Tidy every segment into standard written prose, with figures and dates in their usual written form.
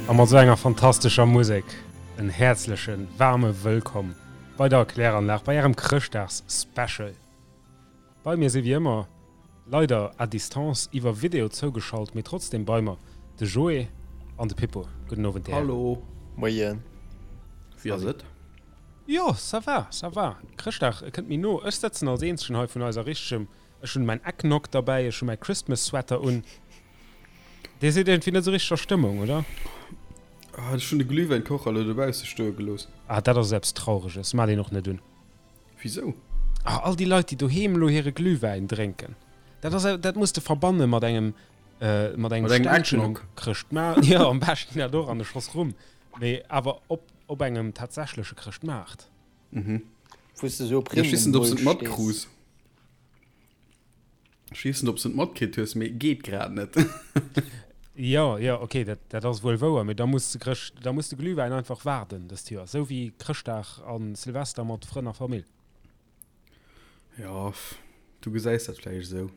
A mat esou enger fantastescher Musek en häerzlechen, waarme Wëllkomm bei der Kläranlag, bei ärem Chrëschtdags-Special. Bei mir si wéi ëmmer, leider à distance iwwer Video zougeschalt, mee trotzdem bei mer, de Joé an de Pippo. Gudden Owend, dir Hären. Hallo. Moien. Wéi ass et? Jo, ça va, ça va. Chrëschtdag kënnt méi no. Ech sëtzen als eenzegen hei vun eiser richtegem, ech hunn mäin Eggnog derbäi, ech hu mäi Christmas Sweater un. Dir sidd iergendwéi net esou richteg a Stëmmung, oder? Ah, ech hunn de Glühwäinkocher elo dobausse stoe gelooss. Ah, dat ass eppes Traureges, maacht een och net un. Wisou? Ah, all déi Leit, déi doheem elo hire Glühwäin drénken, dat ass, dat muss de verbanne mat engem, mat engem Ständchen um Chrëschtmaart. Jo, am beschten dat och an e Schoss Rum, mee awer op, op engem tatsächleche Chrëschtmaart. Mhm. Wou s de sou op Ech weess net, ob s de et Rimmen stees. matkruus. Ech weess net, ob s de et matkritt hues, mee geet grad net. Jo, jo, ok, dat, dat ass wuel wouer, mee da muss de Chrëscht, da muss de Glühwäin einfach waarden dëst Joer, sou wéi Chrëschtdag a Silvester mat Frënn a Famill. Jo, du gesäis dat vläicht esou.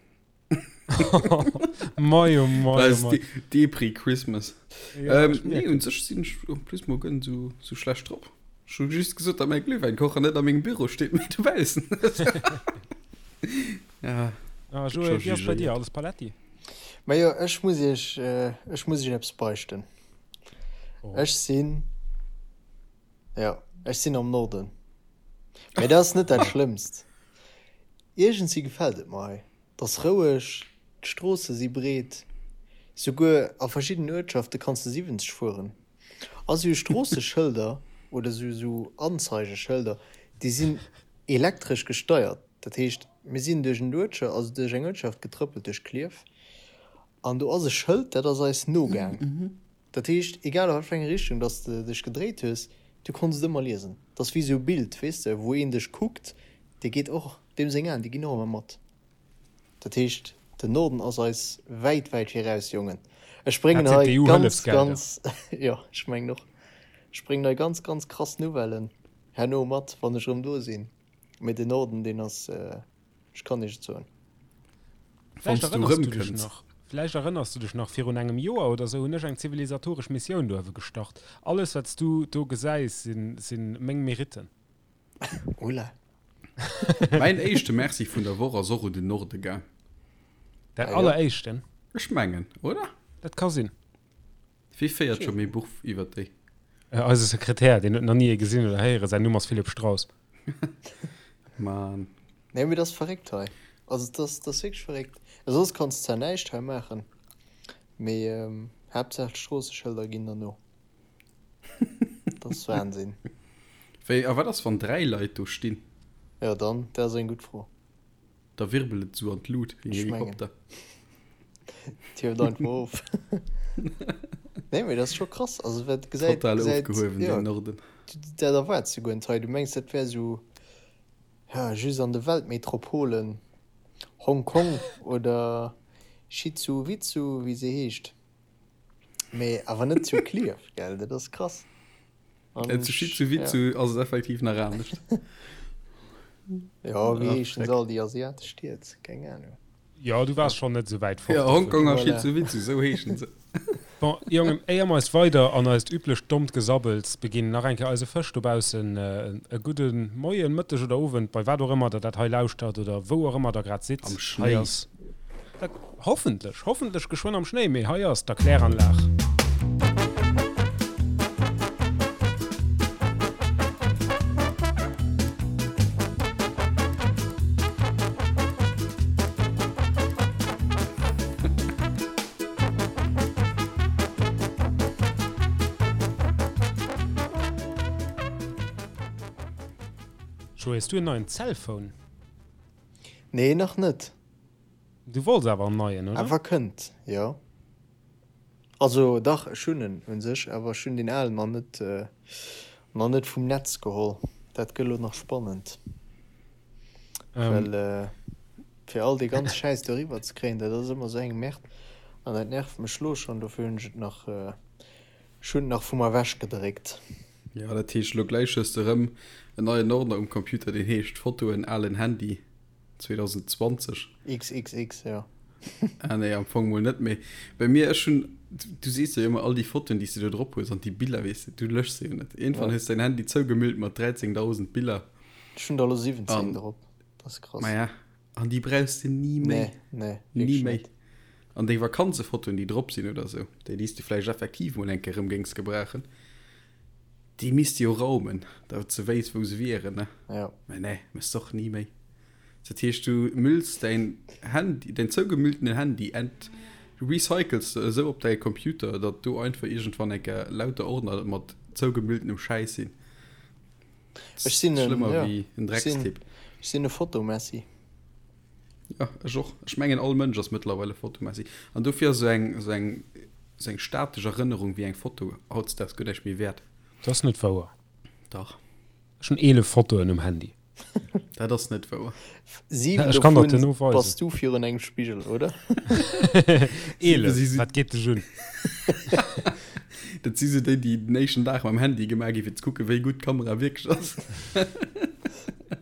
Mei, oh mei, oh mei. Depri Christmas. Ja, ähm, ech nee, mierken. un sech sinn ech en plus mol guer net sou, sou schlecht drop. Ech hu just gesot, datt mäi Glühwäinkocher net a mengem Büro steet, mee dobaussen. Ja, Ah, gëtt Joé, scho wéi ass bei dir? jugéiert. Alles paletti? Majo, ech muss iech, ech muss iech eppes beichten. Oh. Ech sinn, jo, ech sinn am Norden. Mee dat ass net dat Schlëmmst. Iergendwéi gefält et mer hei. 't ass roueg, d'Stroosse si breet, souguer a verschiddenen Uertschafte kanns de 70 fueren. A sou Stroosseschëlder oder sou sou Anzeigeschëlder, déi sinn elektresch gesteiert. Dat heescht, mir sinn duerch en Uertscha, also duerch eng Uertschaft getrëppelt, duerch Klierf, an do ass e Schëld, dat ass eis nogaang. Dat heescht, egal a wat fir eng Richtung dass de dech gedréit hues, du konns et ëmmer liesen. 't ass wéi sou e Bild, weess de, wou een dech kuckt, dee geet och. Deem seng Aen, déi ginn och ëmmer mat. Dat heescht, den Norden ass eis wäit, wäit viraus, Jongen. Ech bréngen Dat sinn hei ganz, d'EU-Hëllefsgelder. ganz, jo, ech mengen och, ech bréngen hei ganz, ganz krass Nouvellen herno mat, wann ech erëm do sinn. Mee den Norden, deen ass, ech kann Iech et soen. Vläicht Wann s du erënners du dech erëmkënns. nach, vläicht erënners du dech nach, virun engem Joer oder sou hunn ech eng zivilisatoresch Missioun do uewe gestart. Alles, wat s du do gesäis, sinn, sinn meng Meritten. Oula. Mäin éischte Merci vun der Woch ass och un den Norde gaang. Dat Ah, jo. alleréischten? Ech mengen, oder? Dat ka sinn. Wie féiert scho méi Buch iwwer déi? Eise Sekretär, deen huet nach ni ee gesinn oder héieren. Säin Numm ass Philippe Strauss. Mann. Nee, mee dat ass verréckt hei. Also, dat ass, dat ass wierklech verréckt. Soss kanns de zwar näischt hei maachen, mee Haaptsaach d'Stroosseschëlder ginn der no. Dat ass Wahnsinn. Wéi, a wat ass wann 3 Leit do stinn? Jo dann, dat ass eng gutt Fro. Da wirbelt et esou an d'Lut wéi en Ech mengen. Helikopter. Et hieft einfach of. Nee, mee dat ass scho krass. Also wat gesäit, Total gesäit, ofgehuewen, jo, deen Norden. dat erwaarts du guer net hei. Du mengs dat wär esou, ja, just an de Weltmetropolen, Hong Kong oder Schizuwitzu, wéi se heescht. Mee awer net zu Klierf, gell? Dat ass krass. An äh, zu Schizuwitzu ja. ass et effektiv nach anescht. Ja, wéi heeschen se all déi asiatesch Stied? Keng Ahnung. Ja, du waars schonn net esou wäit fort. Ja, Hongkong a Schizuwitzu, sou heeschen se. Bon, Jongen, éier mer eis weider an eist üblecht dommt Gesabbels beginn, nach eng Kéier eise Fësch dobaussen e gudde Moien, Mëtteg oder Owend, bei wat och ëmmer der dat hei lauschtert oder wou och ëmmer der grad sidd. Am Hei Schnéi. ass Dat hoffentlech, hoffentlech geschwënn am Schnéi, mee hei ass d'Erkläranlag. Joé, hues du en neien Cellphone? Nee, nach net. Du wollts awer en neien, oder? Awer kënnt, jo. Also dach, ech hunn en un sech, awer ech hunn deen alen nach net, nach net vum Netz geholl. Dat gëtt elo nach spannend. Well fir all dee ganze Schäiss do eriwwer ze kréien, dat ass ëmmer esou eng Merde an dat nervt mech lo schonn. Dofir hunn ech et nach, ech hunn et nach vu mer ewech gedréckt. Jo, dat heescht elo gläich hues de erëm en neien Ordner um Computer, deen heescht Fotoen, alen Handy 2020. XXX, jo. Ah nee, am Fong mol net, mee bei mir, ech hunn, du sees jo ëmmer all déi Fotoen, déi s de do drop hues an déi Biller, weess de, du löschs se jo net. Iergendwann hues de däin Handy zougemüllt mat 13.000 Biller. Ech hunn der elo 17 drop, dat ass krass. Maja, an déi brauchs de ni méi. Nee, nee, Ni wierklech méi. net. An deng Vakanzefotoen, déi drop sinn oder sou, déi, déi s de vläicht effektiv mol eng Kéier erëm géings gebrauchen, déi misst de jo raumen, datt s de wéisst, wou se wieren, ne? Ja. Mä nee, méchs de och ni méi. Dat heescht, du mülls däin Handy, däin zougemülltenen Handy ent recycles de esou op däi Computer, datt do einfach iergendwann eng Kéier lauter Ordner mat zougemülltenem Schäiss sinn. Ech sinn en, Schlëmmer ja, wéi en ech sinn, Dreckstipp. ech sinn e Fotomessi. Ja, ech och. Ech mengen all Mënsch ass mëttlerweil e Fotomessi. An dofir ass esou eng, esou eng, esou eng statesch Erënnerung wéi eng Foto hautdesdaags guer näischt méi wäert. Dat ass net wouer. Dach. Ech hunn 11 Fotoen um Handy. Dat ass net wouer. 7 Ech kann der dovun duerno weisen. bass du virun engem Spigel, oder? 11, wat geet dech un? Dat si sou déi, déi den éischten Dag mam Handy gemaach gi fir ze kucken, wéi gutt d'Kamera wierklech ass.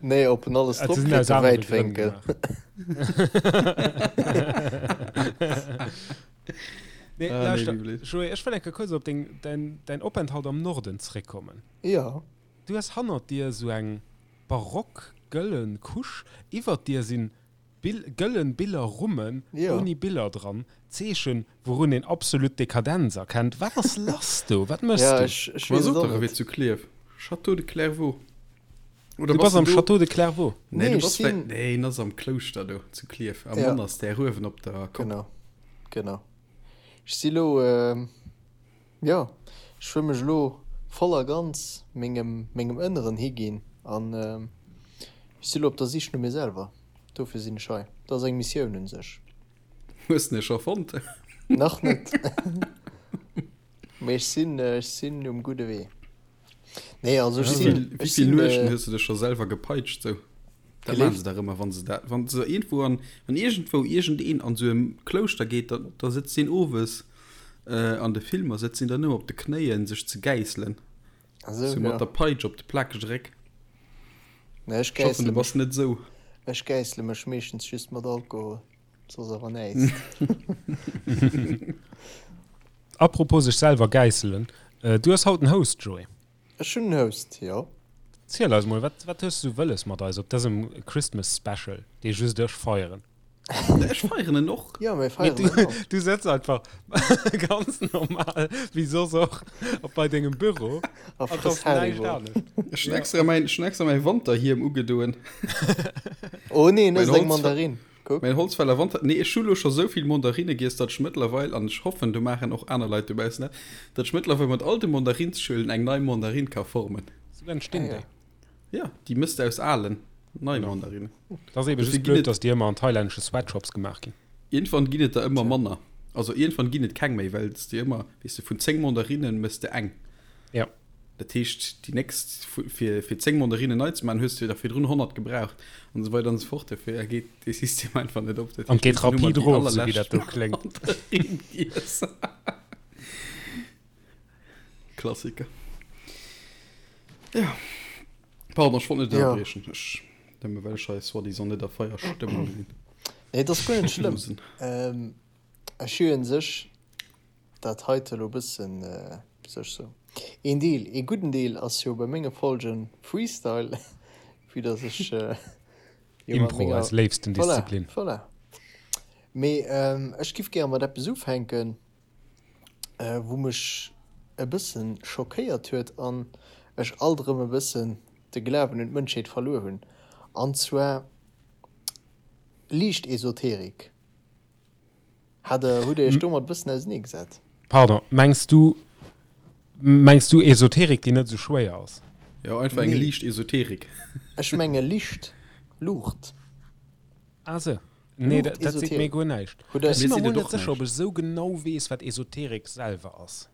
Nee, ob en alles Ah, drop se sinn kritt, aus de anere Grënn Wäitwénkel. gemaach. Nee, Ah, nee, lauschter, wéi blöd. Joé, ech wëll eng Kéier kuerz op deng, däin, däin Openthalt am Norden zréckkommen. Jo. Du hues hannert dir esou eng barock gëllen Couche, iwwert dir sinn Bill, gëllen Billerrummen Jo. ouni Biller dran, Zeechen wourun een absolut Dekadenz erkennt. Wat ass lass do? Wat méchs Ja, du? ech, ech Ma weess et sot och dach, e net. wier zu Klierf. Château de Clairvaux. Oder Du bass bass de am do? Château de Clairvaux. Nee, Nee, du ech bass vläicht, sinn, nee, en ass am Klouschter do zu Klierf, am ja, Monastère uewen op der Kopp. genau, genau. Ech si lo, Jo, ech wëll mech elo voll a ganz mengem mengem Ënneren higinn an ech si elo op der Sich no mir selwer. Dofir sinn ech hei. Dat ass eng Missioun un sech. Hues de e scho fonnt? Nach net, mee ech sinn ech sinn um gudde Wee. Nee, also ech Wéi sinn vill, wéi ech vill sinn Nuechten hues de dech scho selwer gepeitscht sou? Dat maachen se gelift. dach ëmmer, wann se dat, wann se iergendwou an, wann iergendwou iergendeen an sou e Klouschter geet, da, da sëtzt deen owes an de Filmer sëtzt deen dann ëmmer op de Knéien sech ze gäisselen, Ah sou, sou mat ja. der Peitsch op de plakege Réck. Nee, ech Ech hoffen, gäissele du bass mech, net sou. ech gäissele mech meeschtens just mat Alkohol, soss awer näischt. Apropos sech selwer gäisselen, du hues haut en Host, Joé. Ech hunn en Host, jo. Ziel eis mol, wat, wat hues du wëlles mat eis op dësem Christmas Special, dee just ech feieren? Ech feieren en och. Jo, mir Mee feieren du, en och. du sëtz einfach ganz normal, wéi soss och, op bei dengem Büro A an et frëss ass näischt Haribo. anescht. Ech hunn extra mäin, ech hunn extra mäi Wanterhiem ugedoen. Oh nee, en Mäin ësst eng Holz, Mandarin. Kuck. Mäin Holzfäller Wanter, nee ech hu lo scho sou vill Mandarinne giess, datt ech mëttlerweil, an ech hoffen do maachen och aner Leit dobaussen dat, datt ech mëttlerweil mat all de Mandarinschuelen eng nei Mandarinn ka formen. Sou entstinn Ah ja. déi. Ja, déi mëss de aus alen nei Genau. Mandarinnen. Dat ass ebe Dofir just ginn blöd, et, datt déi ëmmer an thailännesche Sweatshops gemaach ginn. iergendwann ginn et der ëmmer Tja. manner. Also iergendwann ginn et keng méi, well s de ëmmer, weess de, vun 10 Mandarinnen mëss de eng. Ja. Dat heescht, déi nächst, fir, fir 10 Mandarinnen nei ze maachen, hues de der virdrun 100 gebraucht an esou weider an esou fort. Dofir geet dee System einfach net op. Dat An heescht, geet iergendwann hu mer rapid déi erof, sou wéi dat allerlescht do kléngt. Mandarinn giess. Klassiker. Ja. Pardon, ech wollt net Ja. ënnerbriechen. Ech, nëmme well ech hei soi-disant net a Feierstëmmung sinn. Nee, dat ass guer net schlëmm. Losen. Ähm, ech hu un sech dat heite lo bëssen sech sou. Een Deel, ee gudden Deel ass jo bei menge Folgen Freestyle, vue dass ech jo mat Impro, menger, eis léifsten voilà, Disziplin. voilà. Mee ech giff gäre mat eppes ufänken, wou mech e bëssen schockéiert huet an ech alt erëm e bëssen de Glawen un d'Mënschheet verluer hunn, an zwar liicht Esoterik. Hat der, hutt Dir Iech domat e bëssen ausenee gesat? Pardon, mengs du, mengs du Esoterik, déi net esou schwéier ass? Jo, einfach eng Nee. liicht Esoterik. Ech menge Licht, Luucht. Ah sou. Nee, dat, dat seet mir Luucht-Esoterik. guer näischt. Hutt Der. Ech si Mir mer seet mol et net och sécher, ob näischt. ech esou genau weess, wat Esoterik selwer ass.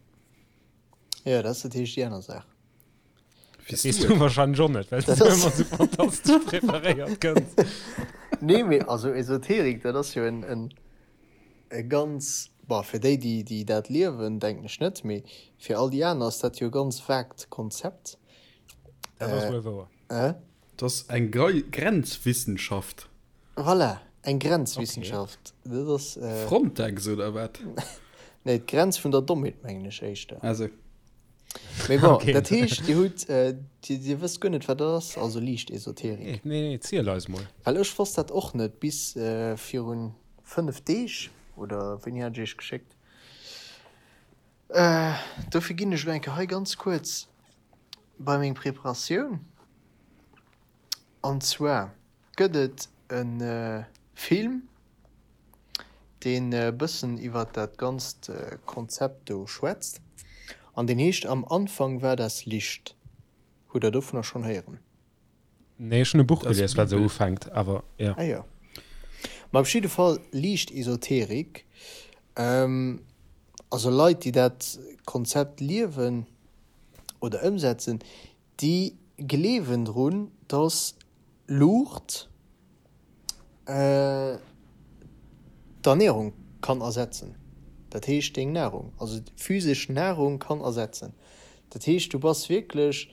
Jo, dat ass natierlech déi aner Saach. Dat weess du wahrscheinlech och net, well s du ëmmer sou fantastesch preparéiert kënns. Nee, mee also Esoterik, dat ass jo en, en, e ganz, bon, fir déi, déi, déi dat liewen, denken ech net, mee fir all déi aner ass dat jo e ganz vaagt Konzept. Dat ass wuel wouer. Äh? Dat ass eng Grenzwissenschaft. Voilà, eng Grenzwissenschaft. Dat ass. Frontex oder wat? Nee, d'Grenz vun der Dommheet, mengen ech éischter. Ah sou. Mee bon, okay. Dat heescht, Dir hutt, äh, Dir, Dir wësst guer net, wat dat ass, also liicht Esoterik. Nee, nee, nee, ziel eis mol. Well ech wosst dat och net bis äh, virun 5 Deeg, oder wéini hat ech Iech geschéckt? Äh, dofir ginn ech elo eng Kéier hei ganz kuerz bei meng Preparatioun. An zwar gëtt et e Film, deen e bëssen iwwer dat ganzt Konzept do schwätzt an deen heescht Am Anfang war das Licht. Hutt der dovunner schonn héieren? Nee, ech hunn e Buch gelies, wat esou ufänkt, awer jo. Ah jo. Ma op jidde Fall liicht Esoterik. Also Leit, déi dat Konzept liewen oder ëmsetzen, Déi gleewen drun, dass Luucht d'Ernärung kann ersetzen, dat heescht deng Nahrung, also physesch Nahrung kann ersetzen. Dat heescht du bass wierklech,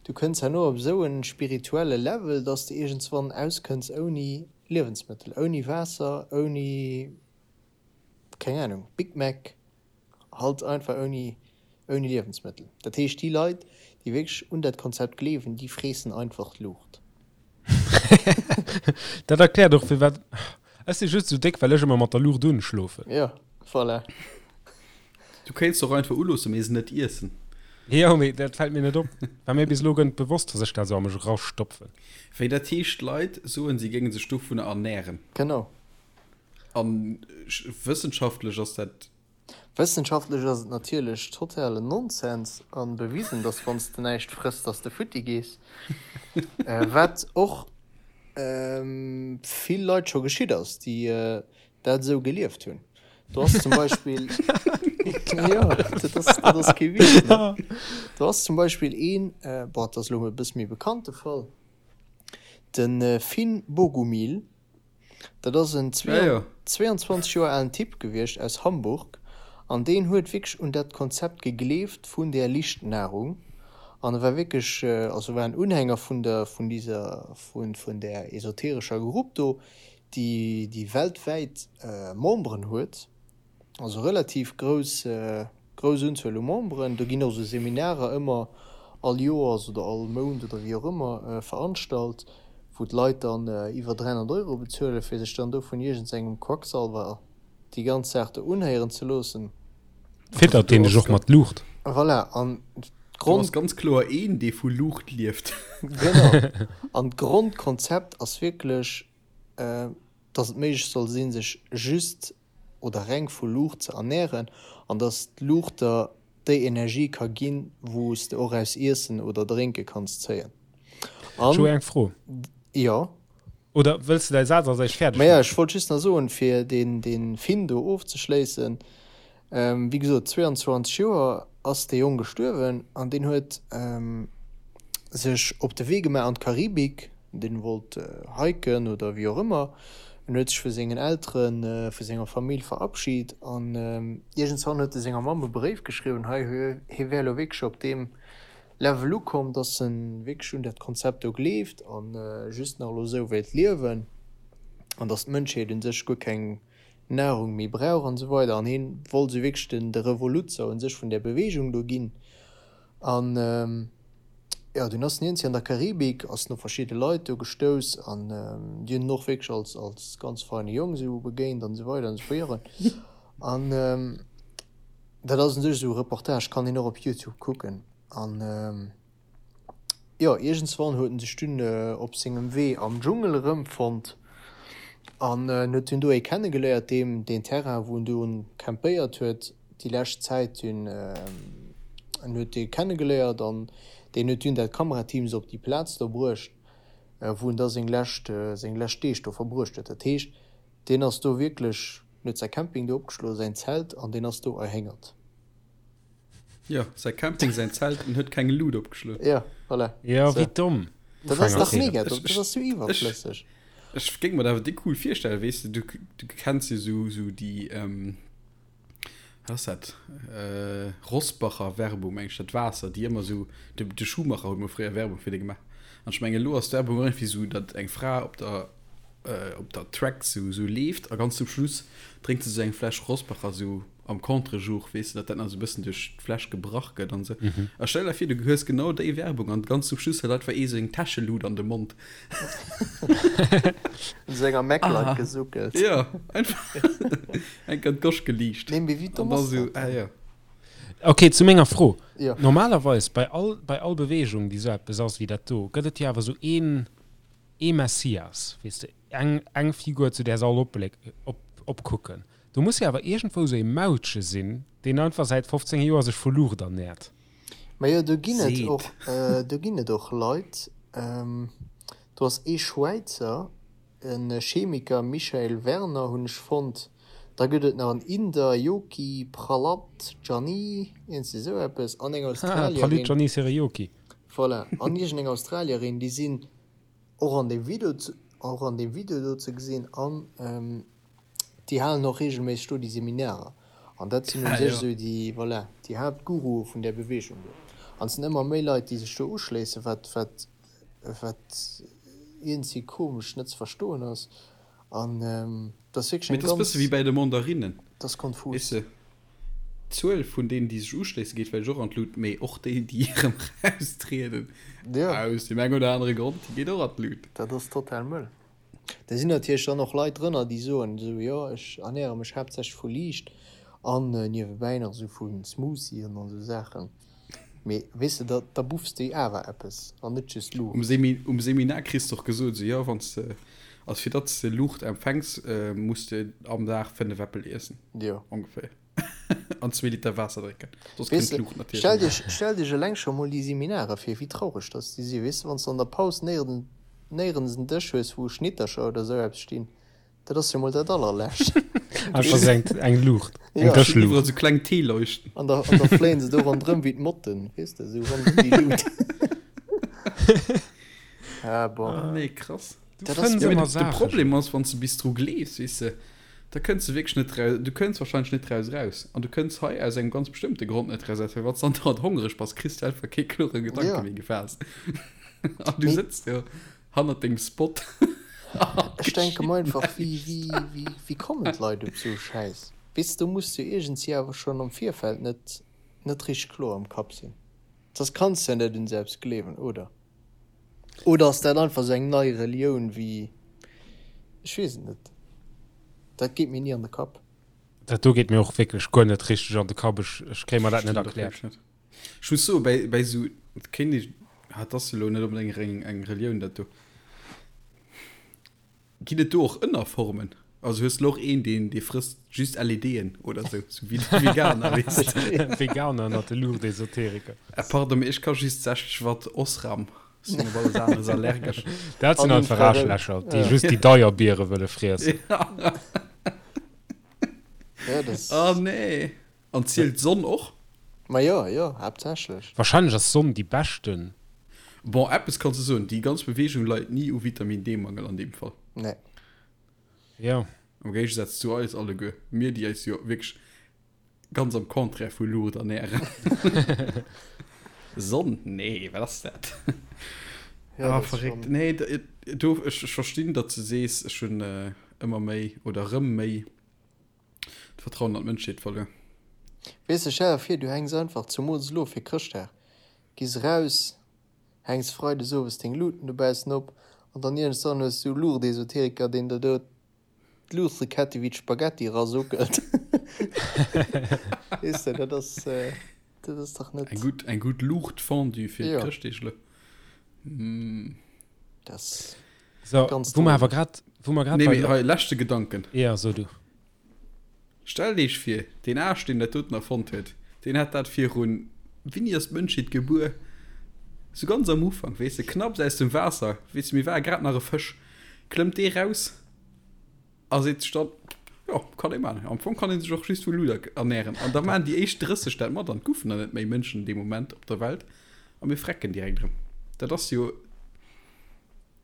du kënns herno op esou e spirituelle Level, dass de iergendswann auskënns ouni Liewensmëttel, ouni Waasser, ouni, keng Ahnung, Big Mac. Halt einfach ouni ouni Liewensmëttel. Dat heescht déi Leit déi wierklech un dat Konzept gleewen, déi freessen einfach d'Luucht. Dat erkläert och firwat ech si just sou déck, well ech ëmmer mat der Luucht un schlofen. Jo, voilà. Du kéints och einfach uloossen, mee se net iessen. Jo, mee dat fält mir net op. War mir bis elo guer net bewosst, dass ech dat sou a mech erastopfen. Wéi dat heescht, Leit soen, si géinge sech dovunner ernären. Genau. An wëssenschaftlech ass dat. Wëssenschaftlech ass et natierlech totalen Nonsens an bewisen, dass wann s de näischt frëss, dass de futti gees. Wat och vill Leit scho geschitt ass, déi dat esou gelieft hunn. Do ass zum Beispill, jo, dat ass, dat ass kee Witz, ne? Do ass zum Beispill een, bon, dat ass elo e bësse méi bekannte Fall, de Finn Bogumil, Dat ass en 22 Joer alen Typ gewiescht aus Hamburg an deen huet wierklech un dat Konzept gegleeft vun där Lichtnahrung an e war wierklech, also war en Unhänger vun der, vun dieser, vun, vun där esoterescher Grupp do, déi, déi weltwäit Memberen huet. Also relativ grouss, grouss Unzuel u Memberen. Do ginn och esou Seminarer ëmmer all Joers oder all Mount oder wéi och ëmmer veranstalt, wou d'Leit dann iwwer 300 Euro bezuelen, fir sech dann do vun iergendsengem Quacksalwer déi ganz Saach do unhéieren ze loossen. Fiddert deen dech och mat Luucht? Voilà, an Do ass ganz kloer een, dee vu Luucht lieft. Genau. An d'Grondkonzept ass wierklech, dass et méiglech soll sinn, sech just oder reng vu Luucht ze ernären an dass d'Luucht der déi Energie ka ginn, wou s de och aus Iessen oder Drénke kanns zéien. Ech hu eng Fro. Jo. Oder wëlls de däi Saz als éischt fäerdeg maachen? Maja, ech wollt just nach soen, fir deen Finn do ofzeschléissen, wéi gesot, 22 Joer ass dee Jong gestuerwen an deen huet sech op de Wee gemaach an d'Karibik, Deen wollt hiken oder wéi och ëmmer. En huet sech vu sengen Elteren, vu senger Famill verabschid an iergendswann huet e senger Mamm e Bréif geschriwwen, hei hie wär elo wierklech op deem Level ukomm, dass en wierklech un dat Konzept do gleeft an just nach elo esou wéilt liewen an dass d'Mënschheet un sech guer keng Nahrung méi brauch an esou weider. An hien wollt esou wierklech den de Revoluzzer un sech vun där Beweegung do ginn. An jo, dunn ass den Iernzi an der Karibik, ass en op verschidde Leit do gestouss an déi hunn en och wierklech als, als ganz feine Jong esou begéint an esou weider an esou virun. An dat ass un sech esou e Reportage, kann een och op Youtube kucken. An jo, iergendswann huet en sech dunn op sengem Wee am Dschungel erëmfonnt an en huet dunn do ee kennegeléiert, deem deen Terrain, wou en do campéiert huet, déi lescht Zäit hunn en huet dee kennegeléiert an deen huet dunn dat Kamerateam se op déi Plaz do bruecht, wou en da seng lescht seng lescht Deeg do verbruecht huet. Dat heescht, deen ass do wierklech, en huet säi Camping do opgeschloen, säin Zelt, an deen ass do erhéngert. Jo, säi Camping, säin Zelt, en huet keng Lut opgeschloen. Jo, voilà. Jo, wéi domm. Dat ass dach mega domm, dat ass sou iwwerflësseg. Ech géing mer dat awer déck cool virstellen, weess de, du, du kenns jo sou, sou déi, wat ass dat, Rossbacher Werbung, meng ech, dat Waasser, déi ëmmer sou, de, de Schumacher huet mol fréier Werbung fir déi gemaach. An ech mengen, elo ass d'Werbung och iergendwéi sou, datt eng Fra op der, op der Track sou, sou leeft a ganz zum Schluss drénkt se sou eng Fläsch Rossbacher sou am Contre-jour, weess de, datt dat nach esou e bëssen duerch d'Fläsch gebrach gëtt an esou. A stell der vir, du hues genau déi Werbung an ganz zum Schluss huet einfach ee seng Täschelut an de Mond. Un sou enger Maglite gesuckelt. Jo, einfach enk an d'Gosch geliicht. Nee, mee wéi domm ass dat dann? Ah jo. Ok, zu menger Fro. Jo. Normalerweis bei all, bei all Beweegung, déi esou eppes ass wéi dat do, gëtt et jo awer esou een, ee Messias, weess de, eng, eng Figur, zu där se all opbléck, op, opkucken. Do muss jo awer iergendwou sou ee Mautche sinn, deen einfach säit 15 Joer sech vu Luucht ernährt. Majo, do ginn et och, do ginn et och Leit. Do ass ee Schwäizer, e Chemiker, Michael Werner hunn ech fonnt. Da gëtt et nach en Inder, Yogi Prahlad Jani, iergendwéi esou eppes, an eng Australierin. Prahlad Jani Seriyoki. Voilà, an iergendeng Australierin, déi sinn och an deem Video, och an deem Video do ze gesinn an. Déi halen och reegelméisseg do déi Seminarer. An dat sinn u sech esou déi, voilà, déi Haaptgurue vun där Beweegung do. An et sinn ëmmer méi Leit, déi sech do uschléissen, wat, wat, wat iergendwéi komesch net ze verstoen ass. An dat ass wierklech eng ganz. Mee dat ass e bësse wéi bäi de Mandarinnen. Dat ass konfus. Weess de, d'Zuel vun deenen, déi sech uschléissen, geet vläicht och an d'Lut, mee och déi, déi erëm eraustrieden, aus deem eng oder anere Grond, déi geet och an d'Lut. Dat ass total mëll. Da sinn natierlech dann och Leit drënner, déi soen esou, jo ech ernäre mech haaptsächlech vu Liicht an niewebäi nach esou vu Smoothien an esou Saachen. Mee weess de, da da buffs de awer eppes an net just Luucht. Um Seminar kriss de och gesot, esou, jo wann s de, also fir datt s de Luucht empfänks, muss de am Dag 5 Äppel iessen, ongeféier. An zwee Liter Waasser drénken. Soss kënnt d'Luucht natierlech Stell net. dech, stell dech eleng scho mol déi Seminare vir, wéi traureg dass déi sinn. Weess de, wann s de an der Paus néierens, néierens en Dësch hues, wou Schnittercher oder esou eppes stinn, dat ass jo mol dat allerlescht. Einfach esou eng, eng Luucht, eng Ja. Dëschluucht. Iwwerall sou kleng Teeleuchten. An da, an da fléien se do ronderëm wéi d'Motten, weess de, esou ronderëm déi Lut. Ah bon. Ah nee, krass. Du Dat ass fënns Ja, mee ëmmer de, de Saachen. Problem ass, wann s de bis dru gleefs, weess de, Da kënns de wierklech net raus, du kënns wahrscheinlech net draus raus. An du kënns hei aus engem ganz bestëmmte Grond net raus, well wann s de andauernd hongereg bass, kriss de einfach kee klore Gedanke Ja. méi gefaasst. An du Mee sëtz do hannert dengem Spot a ech denke geschitt mer einfach, wéi, näischt. wéi, wéi, wéi kommen d'Leit op esou e Schäiss? Weess de, do muss de iergendwéi awer schonn am Virfeld net, net richteg kloer am Kapp sinn. Soss kanns de ja net un esou eppes gleewen, oder? Oder ass dat einfach sou eng nei Relioun wéi, ech weess et net, dat geet mir ni an de Kapp. Dat do geet mir och wierklech guer net richteg an de Kapp, ech ech kréie mer dat net erkläert. Ech muss soen, bäi bäi sou, et kéint ee, ah et ass elo net onbedéngt eng eng Relioun dat do. Ginn et do och Ënnerformen? Also hues de lo och een, deen dee frësst just LEDen oder sou, sou wéi de Veganer, weess de? Veganer ënnert de Luuchtesoteriker. Äh, pardon, mee ech ka just 60 Watt Osram, sinn op alles aneres allergesch. Dat sinn An einfach Infrarout. Aarschlächer, déi Ja. just déi deier Biere wëlle friessen. Ja, das. Oh nee. An zielt d'Sonn och? Ma jo, jo, haaptsächlech. Wahrscheinlech ass d'Sonn déi beschten. Bon, eppes kanns de soen, déi ganz Bewegung leit ni u Vitamin D-Mangel an deem Fall. Nee. Jo. Am Géigesaz zu eis alleguer, mir déi eis jo wierklech ganz am Contraire vu Luucht ernären. Sonn? Nee, wat ass dat? Ja, Ah, dat ass verréckt. schon. Nee, do, ech, ech verstinn, datt s de sees, ech hunn ëmmer méi oder erëm méi D'Vertrauen an d'Mënschheet verluer. Weess de, stell der vir, du hänks einfach, zumools elo fir Chrëschtdag, gees eraus, hänks freides owes deng Luuten dobaussen op an dann iergendswann hues du e Luuchtesoteriker, deen der do d'Luuchtekette wéi d'Spaghetti erasuckelt. Weess de, dat ass, dat ass dach net. Eng gutt, eng gutt Luuchtfondue fir Jo. d'Chrëschtdeeg elo. Mm. Dat ass So, ganz wou mer drôle. awer grad, wou mer grad Nee, bei mee hei, leschte Gedanken. Ja, so du. Stellt Iech vir, deen Aarsch, deen dat doten erfonnt huet, deen hat dat virun, wéini ass d'Mënschheet gebuer? Sou ganz am Ufank, weess de, knapps aus dem Waasser, weess de, mir ware grad nach e Fësch, klëmmt dee raus a seet sech dann, jo, Jo, kann ee maachen. Am Fong kann ee sech och just vu Luder ernären. An da maachen déi éischt 30 dat mat an et goufen der net méi Mënschen dee Moment op der Welt a mir frecken direkt erëm. Dat ass jo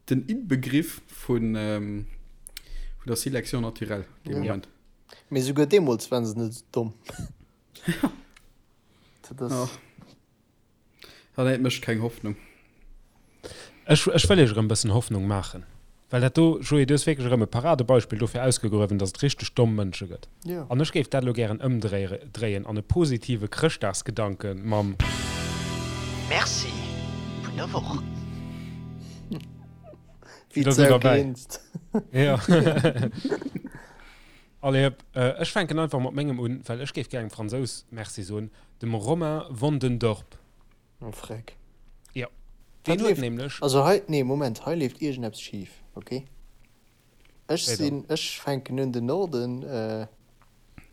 den Inbegriff vun der Sélection naturelle dee Moment. Mee souguer deemools waren se net esou domm. Dat ass. Ah nee, et mécht keng Hoffnung. Ech, ech wëll iech erëm e bëssen Hoffnung maachen. Well dat do, Joé, du hues wierklech erëm e Paradebeispill dofir ausgegruewen, datt et richteg domm Mënsche gëtt. Jo. An ech géif dat elo gären ëmdréien an e positive Chrëschtdagsgedanke mam. Merci vun der Woch. Wéi Da sidd d'Sau derbäi. grinst. Jo. Allez hëpp, ech fänken einfach mat mengem un, well ech géif gär engem Fransous Merci soen, dem Romain Wandendorp. Oh freck. Jo, Wat deen huet leeft, nämlech. also hei, nee Moment, hei leeft iergendeppes schif, ok? Ech Wéi dann? sinn, ech fänken un den Norden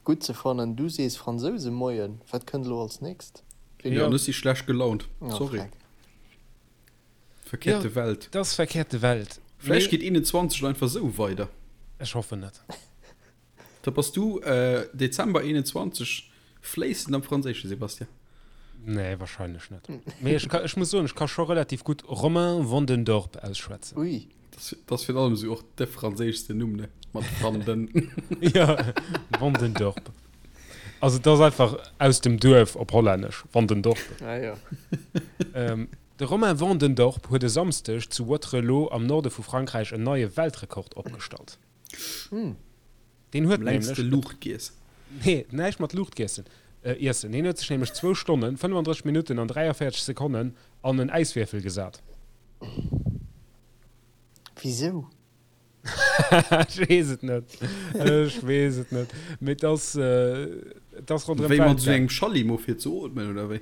gutt ze fannen, du sees Fransouse Moien, wat kënnt elo als nächst? Ween Jo, huet? an ech si schlecht gelaunt, Oh sorry. freck. Verkehrte Jo, Welt. 't ass verkehrte Welt, Vläicht mee. geet 21 einfach esou weider. Ech hoffen net. Da bass du Dezember 21 fléissend am Franséischen, Sebastian. Nee, wahrscheinlech net. Mee ech ka, ech muss soen, ech ka scho relativ gutt Romain Wandendorp ausschwätzen. Ui. Dat ass virun allem esou och de franséischsten Numm, ne? Mat van den. Jo, Wandendorp. Also et ass einfach aus dem Duerf op Hollännesch, Wandendorp. Ah jo. De Romain Wandendorp huet e Samsdeg zu Wattrelos am Norde vu Frankräich en neie Weltrekord opgestallt. Deen huet Am längste nämlech. Luucht giess. Nee, näischt mat Luucht giessen, iessen. Hien huet sech nämlech zwou Stonnen, 35 Minutten an 43 Sekonnen an en Äiswierfel gesat. Wisou? Ech weess et net. Ech weess et net. Mee et ass, et ass ronderëm Wéi mat d'Welt esou gaang. engem Schallimo fir ze ootmen, oder wéi?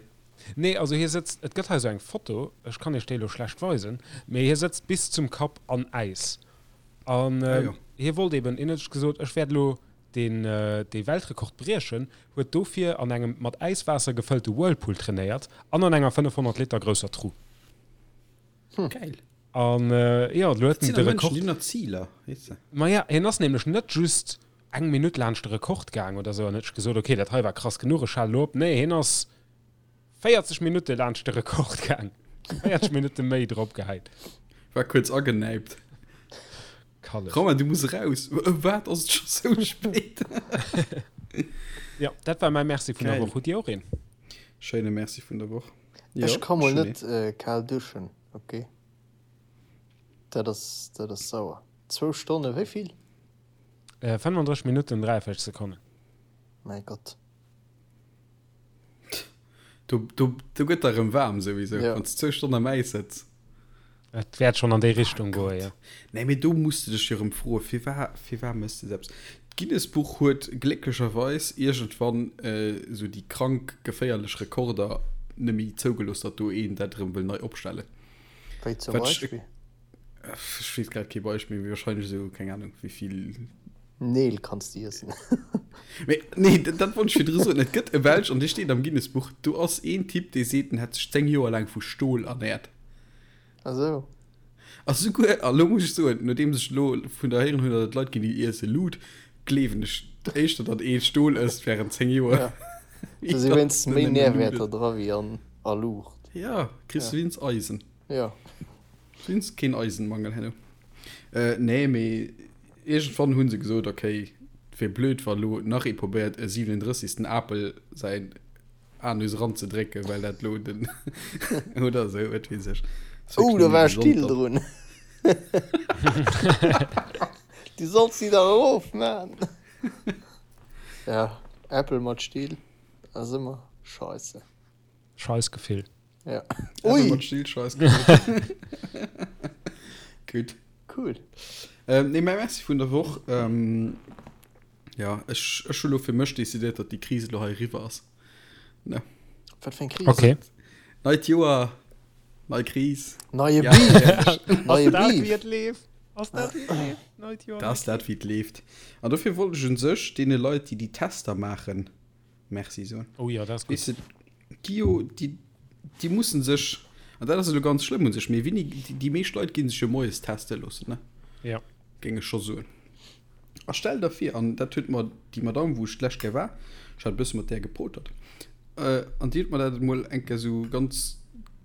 Nee, also hie sëtzt, et gëtt hei esou eng Foto, ech kann iech déi elo schlecht weisen, mee hie sëtzt bis zum Kapp an Äis. An Ah jo. hie wollt eben, hien huet sech gesot, ech wäert elo deen, dee Weltrekord briechen, huet dofir an engem mat Äiswaasser gefëllte Whirlpool trainéiert an an enger 500 Liter grousser Tru. Geil. An jo, elo huet Dat en sinn de da Mënschen, Rekord. déi hunn nach Ziler, weess de. Maja, hien ass nämlech net just eng Minutt laanscht de Rekord gaang oder sou an huet sech gesot, okay, dat hei war krass genuch, ech halen elo op. Nee, hien ass 40 Minutte laanscht de Rekord gaang. 40 Minutte méi drop gehäit. War kuerz agenäipt. Kalleg. Romain, du muss eraus. Wat, ass et scho sou spéit? Jo, dat war mäi Merci vun der Geil. Woch. Hutt Dir och een? Schéine Merci vun der Woch. Ech Jo, ka mol ech hunn net kal duschen, ok? Dat ass, dat ass sauer. Zwou Stonne, wéi vill? 35 Minutten, 43 Sekonnen. Mäi Gott. Do, do, do gëtt der erëm waarm souwisou, Ja. wann s du zwou Stonnen am Äis sëtz. Et wäert schonn an déi Richtung goen, jo. Nee, mee do muss de dech jo erëm froen, firwat, firwat méchs de eppes? D'Guinness-Buch huet glécklecherweis iergendwann esou déi krank geféierlech Rekorder net méi zougelooss, datt do een dat erëm wëll nei opstellen. Wéi zum Wat ech, Beispill? ech weess grad kee Beispill, mee wahrscheinlech esou, keng Ahnung, wéi vill. Neel kanns de iessen. Mee nee, dat, dat wollt ech virdru soen. Et gëtt e Belsch, an dee steet am Guinness-Buch, do ass een Typ, dee seet, en hätt sech 10 Joer laang vu Stol ernäert. Ah sou. A souguer, a lo muss ech soen, nodeems ech lo vun der héieren hunn, datt et Leit ginn, déi iesse Lut, gleewen ech éischter, datt ee Stol ësst wärend 10 Joer. Ja. Do si wéinstens méi Nährwäerter dra wéi an a Luucht. Ja, kriss du wéinst Eisen. Ja. Wéinst keen Eisenmangel herno. Nee, mee Iergendwann hu se gesot, ok, et wier blöd, wa lo nach ee probéiert, e 37. Apel säin Anus eranzedrécken, well dat lo den oder esou, wat weess ech. Oh, do war e Still drun. Du solls si dach erof man. Ja, Äppel mat Still ass ëmmer scheisse. Scheißgefill. Ja. Ui! Ui! Still, Scheißgefill. Gutt. Cool. Ähm, nee, mäi Merci vun der Woch. Ähm, ja, ech, ech hu lo fir mech decidéiert, datt déi Kris elo hei eriwwer ass. Ne. Wat fir eng Kris? Okay. Neit Joer, nei Kris. Neie Ja, Beef! ehrlech. Neie Ass dat Beef! wéi et leeft? Ass dat wéi et leeft? Neit Joer, Dat nei ass dat, wéi et leeft. An dofir wollt ech un sech deene Leit, déi déi Tester maachen, Merci soen. Oh jo, dat ass gutt. Weess de, déi jo, déi, déi mussen sech, an dat ass elo ganz schlëmm un sech, mee wéini, déi, déi meescht Leit gi sech jo moies teste loossen, ne? Ja. Géing ech scho soen. A stell der vir, an dat huet mer déi Madame, wou ech d'lescht Kéier war, ech hat e bësse mat där gepotert, an déi huet mer dat emol eng Kéier esou ganz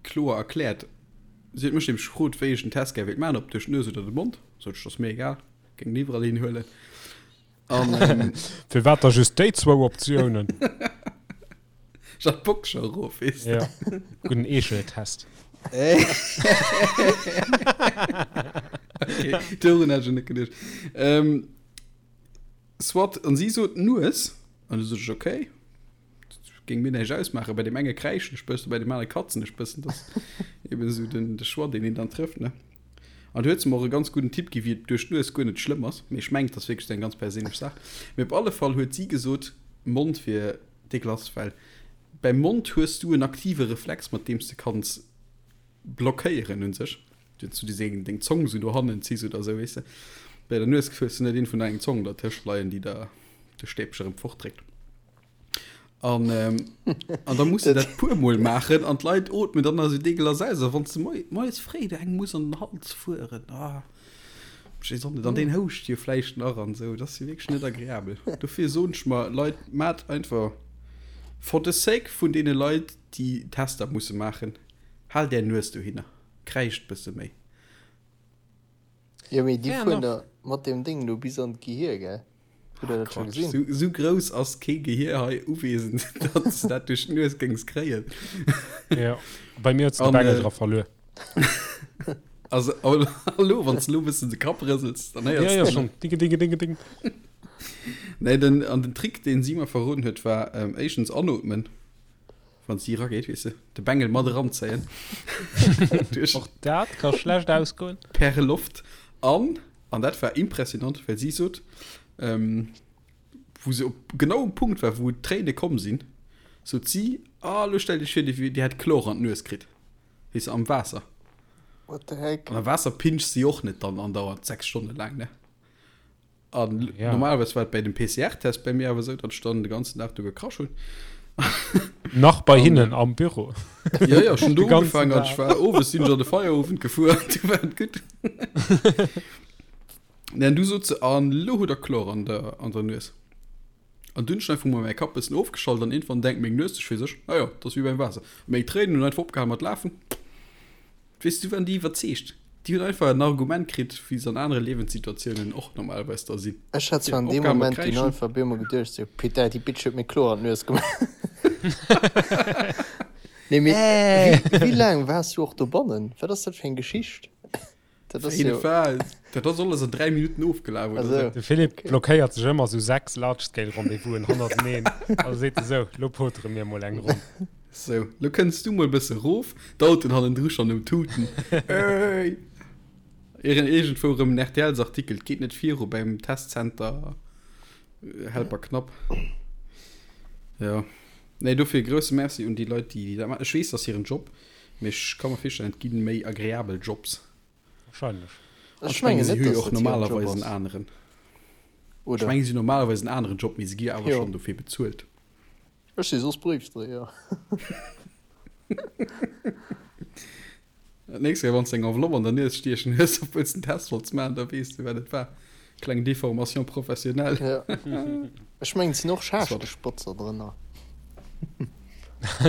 kloer erkläert. Si huet mech nämlech gefrot, wéi ech den Test gär wéilt maachen, ob duerch d'Nues oder de Mond. Sot ech, dat ass mir egal, géing en iwwerall hin huelen. An, Firwat da just déi zwou Optiounen? Ech hat d'Box scho erof, weess de. Ja, gudden Eecheltest. Okay, dorun hat ech net geduecht. Ähm, soit, an si sot Nues, an du sot ech, okay, géing mir näischt ausmaachen. Bei deem enge kräischen ech bëssen, bei deem anere katzen ech bëssen. Dat ass eben esou den, de Choix, deen een dann trëfft, ne? An du huet se mer och e ganz gudden Tipp gi wéi et duerch d'Nues guer net schlëmm ass. Mee ech mengen, et ass wierklech esou eng ganz perséinlech Saach. Mee op alle Fall huet si gesot, Mond wier dégueulasse, well beim Mond hues du en aktive Reflex, mat deem s de kanns blockéieren un sech, wann s du deng deng Zong esou no hannen ziss oder esou, weess de. Bei der Nues hues du net een vun der eng Zong dertëscht leien, déi der de Stäbche erëm fortdréckt. An, ähm, an da muss du dat puer Mol maachen an d'Leit ootmen dann also deegelass aus. A wann du moi, moies fréi der eng muss an den Hals fueren, ah, ech weess och net, an deen houscht jo vläicht nach an esou, dat ass jo wierklech net agreabel. Dofir soen ech mer, Leit, maacht einfach for the sake vun deene Leit, déi Tester musse maachen, haalt är Nues dohinner, kräischt bësse méi. Jo, mee déi fueren da mat deem Ding do bis an d'Gehir, gell? Hutt der dat scho gesinn? Sou, sou grouss ass kee Gehir hei uwesend, datt s de dat duerch d'Nues géings kréien. Jo, bei mir huet se de Bengel dra verluer. Also, hallo, wann s de elo e bëssen de Kapp rësels, dann héiers de. Jo, jo, schonn. Dinge, dinge, dinge, ding. Nee, den, an den Trick, deen si mer verroden huet, war éischtens anootmen, wann si erageet, weess de, de Bengel mat eranzéien. Och dat ka schlecht ausgoen. Per Loft. An An dat war impressionant, well si sot, wou se op genau um Punkt war, wou d'Tréine komm sinn, sot si, Ah, elo stellt Iech vir, dir, dir hätt Chlor an d'Nues kritt, weess de, am Waasser. What the heck? An am Waasser pincht si och net dann andauernd 6 Stonne laang, ne? An ja. normalerweis war et bei dem PCR-Test bei mir awer esou, datt ech dann de ganzen Dag do gekrasch hunn. Nach bei hinnen am Büro. Ja, ja, schon do ugefaangen an ech war owes sinn ech an de Feierowend gefuer an du war et gutt. Nee, an du sot se, an lo hutt der Chlor an der, an der Nues. An dunn hunn ech einfach mol mäi Kapp bëssen ofgeschalt an iergendwann denkt meng Nues sech fir sech, ah jo, dat ass wéi beim Waasser. Meng Tréinen hunn einfach opgehal mat lafen. Weess du, waren déi iwwerzeegt. Déi hunn einfach en Argument kritt, wéi se an anere Liewenssituatiounen och normalerweis da sinn. Ech hat zwar an deem Moment dunn einfach op eemol geduecht, sou, Putain, déi Bitch huet mir Chlor an d'Nues gemaach. Nee, mee wéi, wéi laang waars du och dobannen? Wat ass dat fir eng Geschicht? Dat ass jo. Dat ass alles an 3 Minutten ofgelaf oder sou. De Philippe blockéiert sech ëmmer sou 6 Large-Scale-Rendez-vousen hannerteneen a seet esou, Lo potere mir mol eng Ronn. Sou, lo kënns du mol bësse rof, d'Autoen hannendru schonn um Tuten. Ey! Ieren iergendwou erëm en RTLs-Artikel, 't geet net viru beim Testcenter Helper Knapp. Jo. Nee, dofir e grousse Merci un déi Leit, déi dat maachen. Ech weess, dat ass hiren Job, mee ech ka mer virstellen, et gi méi agreabel Jobs. Wahrscheinlech. An ech mengen, si hu jo och normalerweis en aneren. Ech mengen, si hunn normalerweis en aneren Job, mee si gi jo awer schonn dofir bezuelt. Ech si soss Bréifdréier. Dat nächst Kéier, wann s de eng Enveloppe an der Nues stiechen hues, obwuel s de en Test wollts maachen, da weess de, wat et war. Kleng Déformation professionnelle. Ja. Ech mengen, et sinn och Schaaschteschbotzer drënner.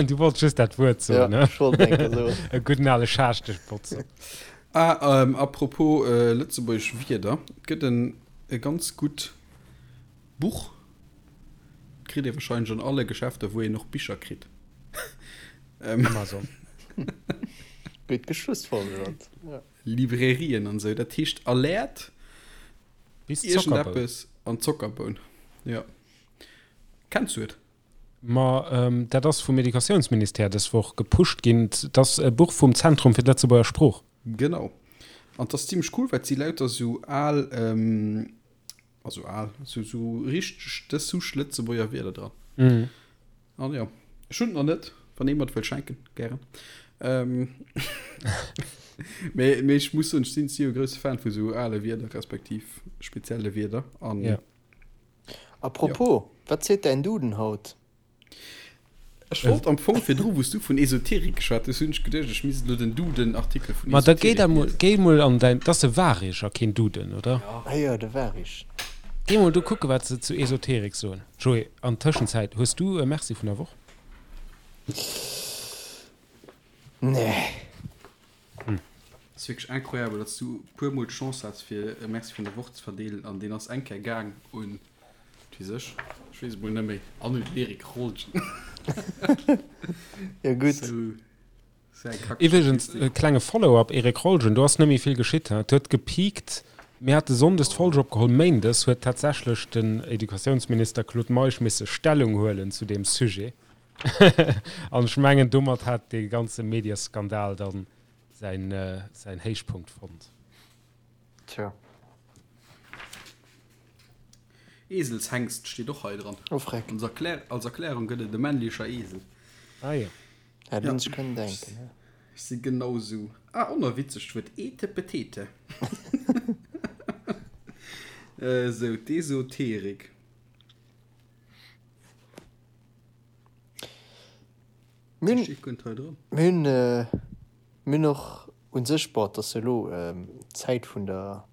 Du wollts just dat Wuert soen, ne? Ja, ech wollt eng Kéier soen. E gudden ale Schaaschteschbotzer. Ah, à propos lëtzebuergesch Wierder, et gëtt en e ganz gutt Buch. Kritt ee wahrscheinlech an alle Geschäfter, wou een och Bicher kritt. Amazon. Gutt geschlussfolgert. Ja. Librairien an esou. Dat heescht Alerte Bis iergendeppes an Zockerboun. Ja. Kenns du et? Ma dat ass vum Educatiounsministère dës Woch gepusht ginn. Dat ass e Buch vum Zentrum fir d'Lëtzebuerger Sprooch. Genau. An 't ass zimmlech cool, well et si lauter sou al Also al, sou, sou richteg dës Souche Lëtzebuerger Wierder dran. Mhm. An jo, ech hunn et nach net, wann ee mer et wëllt schenken, gären. Ähm, mee, mee ech muss soen, ech sinn si jo e grousse Fan vu sou ale Wierder, respektiv spezielle Wierder. An Ja. Apropos, wat seet däin Duden haut? Ech wollt am Fong virdru, wou s du vun Esoterik geschwat hues, hunn ech geduecht, ech misst elo den Duden-Artikel vun Ma da géi Esoterik da mol, liesen. géi mol an däin, 't ass de Warig a keen Duden, oder? Ah jo, de Warig. Géi mol do kucke wat se zu Esoterik soen. Joé, an Tëschenzäit, hues du e Merci vun der Woch? Nee. Ass wierklech incroyable, datt s du e puer mol d'Chance has fir e Merci vun der Woch ze verdeelen an deen ass eng Kéier gaang un, wat weess ech, ech weess et mol net méi, an un den Eric Rolgen. Jo gutt. Sou, sou eng Iwwregens, Kackstatistik. e klenge Follow-up, Eric Rolgen, do ass net méi vill geschitt, he? Et huet gepiekt, mir hate sonndes d'Folg opgeholl, méindes huet tatsächlech den Educatiounsminister Claude Meisch misse Stellung huelen zu deem Sujet. An ech mengen, domat hat dee ganze Medieskandal dann säin, säin Héichpunkt fonnt. Tja. Eselshengst steet och hei dran. Oh freck. Als Erklär, als Erklärung gëtt et e männlecher Esel. Ah jo. Hätt een sech kënnen denken, ne? Ech si genau sou. Ah, och nach witzeg, d'Wuert Etepetete. Sou, d'Esoterik. Mir hunn, mir hunn och u sech, bon, et ass jo elo d'Zäit vun der,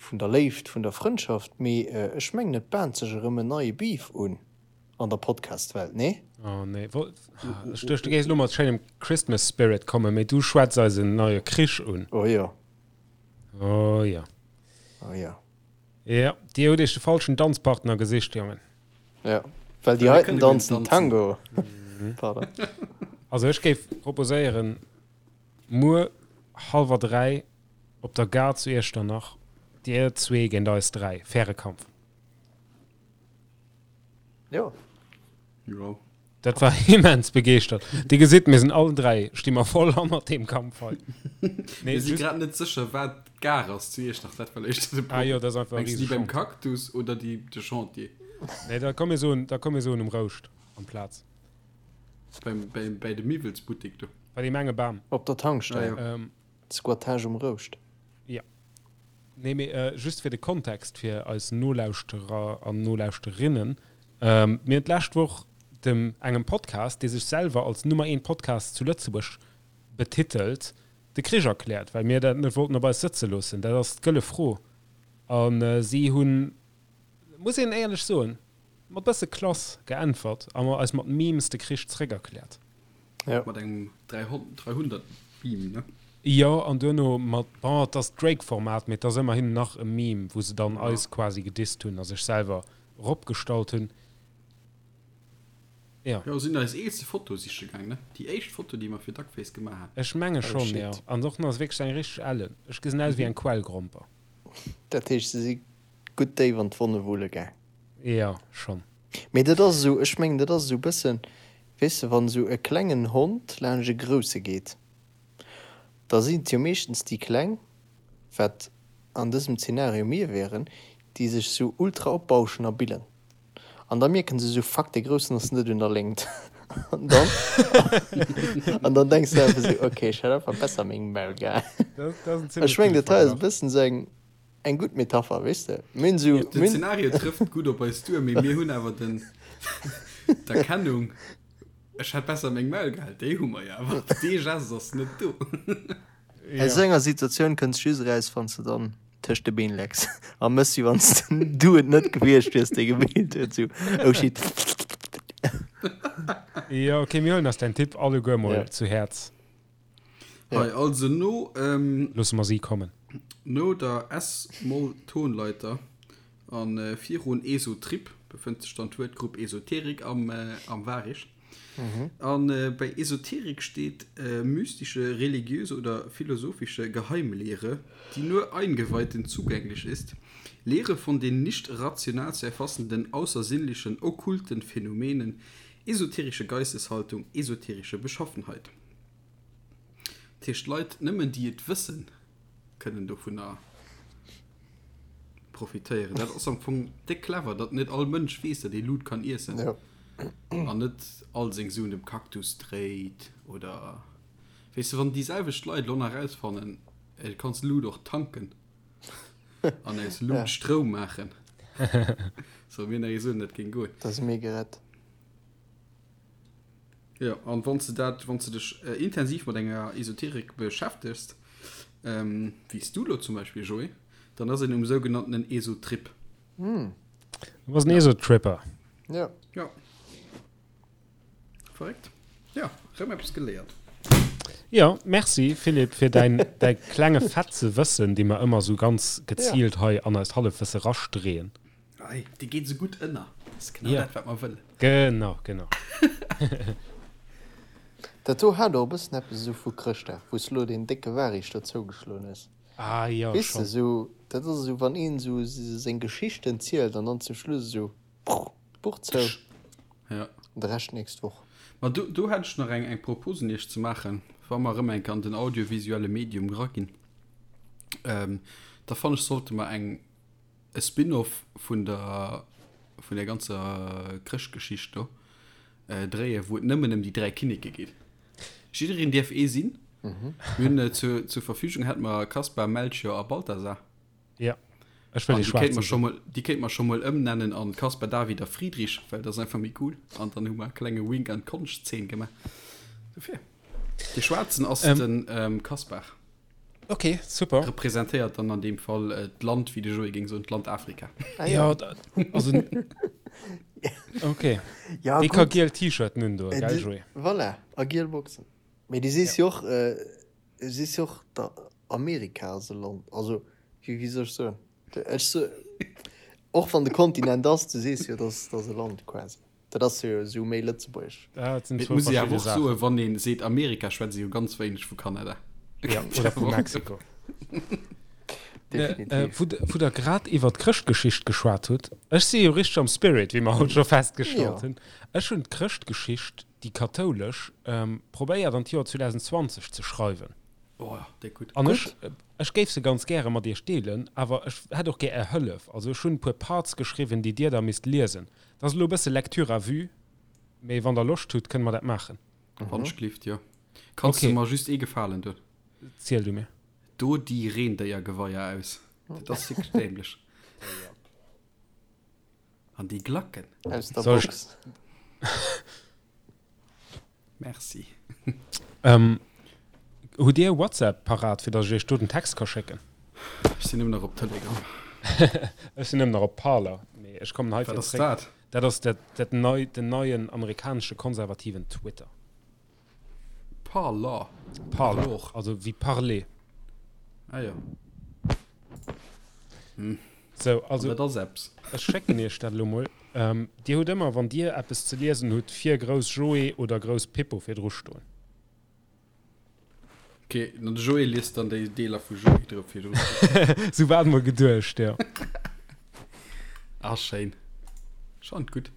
vun der Léift, vun der Frëndschaft, mee ech mengen, et bahnt sech erëm en neie Beef un an der Podcast-Welt, nee? Oh nee, ech duecht, du géifs elo mat schéinem Christmas Spirit kommen, mee du schwätz eis en neie Krich un. Oh jo. Oh jo. Oh jo. Jo, dir hutt iech de falschen Danzpartner gesicht, Jongen. Ja, well déi heiten danzen Tango. Pardon. Also ech géif proposéieren, muer hallwer 3 op der Gare zu Iechternach, dir zwee géint eis 3, faire Kampf. Jo. Jo. Dat war immens begeeschtert. Dir gesitt, mir sinn allen 3, sti mer voll hannert deem Kampf hei. Nee, Mir si just, grad net sécher, wat d'Gare ass zu Iechternach. Dat war éischter de ah jo, Problem. dat ass einfach e Mengs du déi beim Riesechantier. Cactus oder déi de Chantier? Nee, da komm mir soen, da komm mir soen um Rouscht amplaz. Beim, beim, bäi de Miwwelsbuttek do. Bei deem enge Bam. Op der Ah Tankstell. jo. Ähm, Squattage um Rouscht. ja. Nee, mee just fir de Kontext fir eis Nolauschterer an Nolauschterinnen, Mir hunn d'lescht Woch dem engem Podcast, dee sech selwer als Nummer eent Podcast zu Lëtzebuerg betitelt, de Krich erkläert, well mir dat net wollten op eis sëtze loossen. Dat ass d'gëlle Fro. A si hunn, muss een éierlech soen, mat bësse Klass geäntwert a eis mat Memes de Krich zréckerkläert. Ja. Mat engem 300 Meme, ne? Jo, an duerno mat, bon, et ass d'Drake-Format, mee et ass ëmmerhin nach e Meme, wou se dann eis quasi gedisst hunn a sech selwer eropgestallt hunn. Jo. Jo, sinn eis eelste Foto siche gaang, ne? Déi éischt Foto, déi mer fir Duckface gemaach haten. Ech menge Oh schonn, jo. shit. An och nach wierklech eng richteg ellen. Ech gesinn aus wéi eng Quellgromper. Dat heescht, se si gutt déif an d'Wonne wulle gaang. Jo, schonn. Mee dat ass esou, ech mengen, dat ass esou e bëssen, weess de, wann esou e klengen Hond laanscht e grousse geet, da sinn et jo meeschtens déi Kleng, wat an dësem Zeenario mir wären, déi sech esou ultra opbauschen a billen. An da mierken se esou, Fuck, dee Groussen ass net un der Léngt. An dann, an dann denks de einfach esou, Okay, ech hätt einfach besser meng Maul gehal. Ech mengen, dat hei ass e bëssen esou eng. Eng gutt Metapher, weess de. Mir hunn esou, Den mir hunn. Szenario trëfft gutt op eis duer, mee mir hunn awer den, d'Erkennung, ech hätt besser meng Maul gehal, déi hu mer jo awer. Dee Gest ass net do. Aus esou enger Situatioun kënns just eraus, wann s de dann tëscht de Been lecks a mëss, wéi wann s du et net gewiescht wiers, dee gebeelt huet, esou, oh shit. Jo, okay, mir huelen eis däin Tipp alleguer mol Ja. zu Häerz. Hei, also no, ähm, Loosse mer si kommen. No der S-Moll-Tonleiter a virun Esotrip befënnt sech dann d'Wuertgrupp Esoterik am, am Varich. A bei Esoterik steet mystische, religiöse oder philosophische Geheimlehre, die nur Eingeweihten zugänglich ist, Lehre von den nicht rational zu erfassenden außersinnlichen, okkulten Phänomenen, esoterische Geisteshaltung, esoterische Beschaffenheit. Dat heescht, Leit, nëmmen déi et wëssen, kënnen dovunner profitéieren. Dat ass am Fong déck clever, datt net all Mënsch weess, datt ee Lut kann iessen an net all seng Suen dem Cactus dréit oder, weess de, wann déi selwecht Leit elo nach erausfannen, du kanns Lut och tanken an aus Lut Stroum maachen, solle mir nach ee soen, dat géing goen. Da si mir gerett. Jo, an wann s de dat, wann s de dech intensiv mat enger Esoterik beschäftegst, wéi s du elo zum Beispill, Joé, dann ass een um sougenanntenen Esotrip. Du bass en Eso-Tripper. Ja. Ja. Verréckt. Ja, rëm eppes geléiert. Jo, merci Philippe fir däin däi klenge Fetze Wëssen, dee mer ëmmer esou ganz geziilt hei an eist Hallefwësse rastreeën. Ei, déi geet esou gutt ënner. Dat ass genau dat, wat mer wëllen. Genau, genau. Dat do hat och e bëssen eppes esou vu Chrëschtdag, wou s de lo deen décke Waricht do zougeschloen hues. Ah jo, Weess de, schonn. esou, dat ass esou, wann een esou seng Geschichten zielt an dann zum Schluss esou, prr, d'Buch zou. Ja. De Rescht nächst Woch. Ma do, do hätt ech nach eng, eng Propos un Iech ze maachen, wa mer erëm eng Kéier an den audiovisuelle Medium eraginn. Ähm, da fannen ech, sollte mer eng, e Spin-off vun der, vun der ganzer Chrëschtgeschicht do dréien, wou et nëmmen ëm déi 3 Kinneke geet. Jiddereen dierf ee sinn. Mir hunn zur, zur Verfügung hätte mer Kaspar, Melchior a Balthasar. Ja, ech wëll An dee déi kéint mer schwaarzen scho sinn. mol, déi kéint mer scho mol ëmnennen an Kaspar David a Friedrich, well dat ass einfach méi cool. An dann hu mer e klenge Wink an d'Konschtzeen gemaach. Dofir. Dee schwaarzen ass Ähm. den ähm, Kaspar. Okay, super. Representéiert dann an deem Fall äh, d'Land, wéi de Joé géing soen, d'Land Afrika. Ah, Ja, ja. da, also. Okay. Ja, Dee ka gutt. giel T-Shirten un do, Äh, gell, di, Joé? voilà, a giel Boxen. Mee du sees jo och, äh, du sees jo och, da Amerika ass e Land, also wéi wéi soll ech soen, ech so och wann de Kontinent ass, du sees jo dass dass e Land quasi, dat ass jo esou méi lëtzebuergesch. Dat sinn Et zwou muss ee awer verschidde och Saachen. soen, wann ee seet Amerika, schwätzt ee jo ganz wéineg vu Kanada. Ja, oder vu Mexiko. Definitiv. Wou wou der grad iwwer d'Chrëschtgeschicht geschwat hutt, ech si jo richteg am Spirit, wéi mer haut scho festgestallt Jo. hunn. Ech hunn d'Chrëschtgeschicht, déi kathoulesch, probéiert an d'Joer 2020 ze schreiwen. Oh, déi gutt. An ech, ech géif se ganz gäre mat iech deelen, awer ech hätt och gär är Hëllef. Also ech hunn e puer Parts geschriwwen, déi dir da misst liesen. Dat ass elo e bësse Lecture à vue, mee wann der Loscht hutt, kënne mer dat maachen. Wandschlift, jo. Kanns Okay. du mer just ee Gefalen doen? Ziel du mir. Do déi Reendéiergeweier aus. Dat ass wierklech dämlech. An déi Glacken. Aus der Soll ech- Box. Merci. Ähm, hutt Dir WhatsApp parat, fir datt ech iech do den Text ka schécken? Ech sinn nëmmen nach op Telegram. Ech sinn nëmmen nach op Parler, mee ech kommen hei Wat fir ass zréck. dat? Dat ass dat, dat nei, den neien amerikanesche konservativen Twitter. Parler. Parler, Parlor. also wéi parler. Ah jo. Sou, also. Dat ass eppes. Ech schécken iech dat elo mol. Dir hutt ëmmer, wann Dir eppes ze liesen hutt, vir grouss Joé oder grouss Pippo virdru stoen. Ok, an de Joé liest dann déi Deeler vu Joé drop virdru. Sou war et mol geduecht, jo. Ah, schéin. Schonn gutt.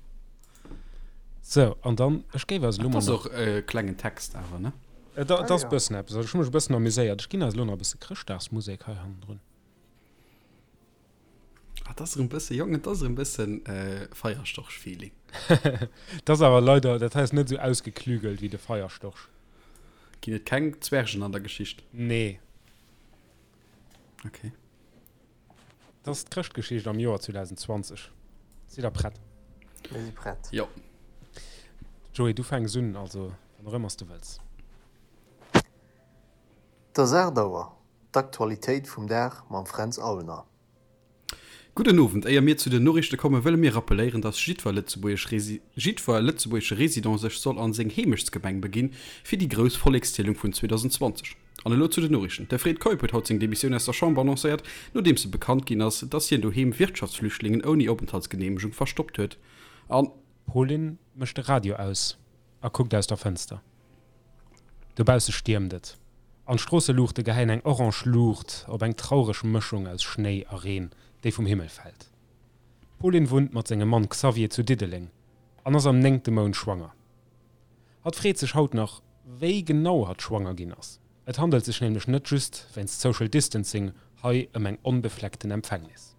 Sou, an dann, ech géif eis elo Dat mol ass nach. och e klengen Text awer, ne? Et ass e bëssen eppes. Also ech hu mech e bëssen amuséiert. Ech ginn eis elo nach e bësse Chrëschtdagsmusek hei hannendrun. Ah, dat ass erëm bësse, Jong, et ass erëm bëssen Feierstorch-Feeling. Dat ass awer leider, dat hei ass net esou ausgeklügelt wéi de Feierstorch. Ginn et keng Zwergen an der Geschicht? Nee. Okay. Dat ass d'Chrëschtgeschicht am Joer 2020. Sidd der prett? Mir si prett. Jo. Joé, du fänks un, also wann och ëmmer s de wëlls. Et ass 8 Auer, d'Aktualitéit vum Dag mam Fränz Aulner. Gudden Owend, éier mir zu den Noriichte kommen, wëlle mir rappeléieren, dass jiddwer lëtzebuergesch jiddwer lëtzebuergesche Resident sech soll an seng Heemechtsgemeng beginn, fir déi grouss Vollekszielung vun 2020. An elo zu den Noriichten, De Fred Keup huet haut seng Demissioun aus der Chamber annoncéiert, nodeems e bekannt ginn ass, dass hien doheem Wirtschaftsflüchtlingen ouni Openthaltsgeneemegung verstoppt huet. An. D'Pauline mécht de Radio aus a kuckt aus der Fënster. Dobausse stiermt et, an d'Stroosseluuchte gehäien eng orange Luucht op eng traureg Mëschung aus Schnéi a Reen, déi vum Himmel fält. D'Pauline wunnt mat sengem Mann Xavier zu Diddeleng an ass am néngte Mount schwanger. Hatt freet sech haut nach, wéi genau hatt schwanger ginn ass. Et handelt sech nämlech net just wéinst Social Distancing hei ëm eng onbefleckten Empfängnis.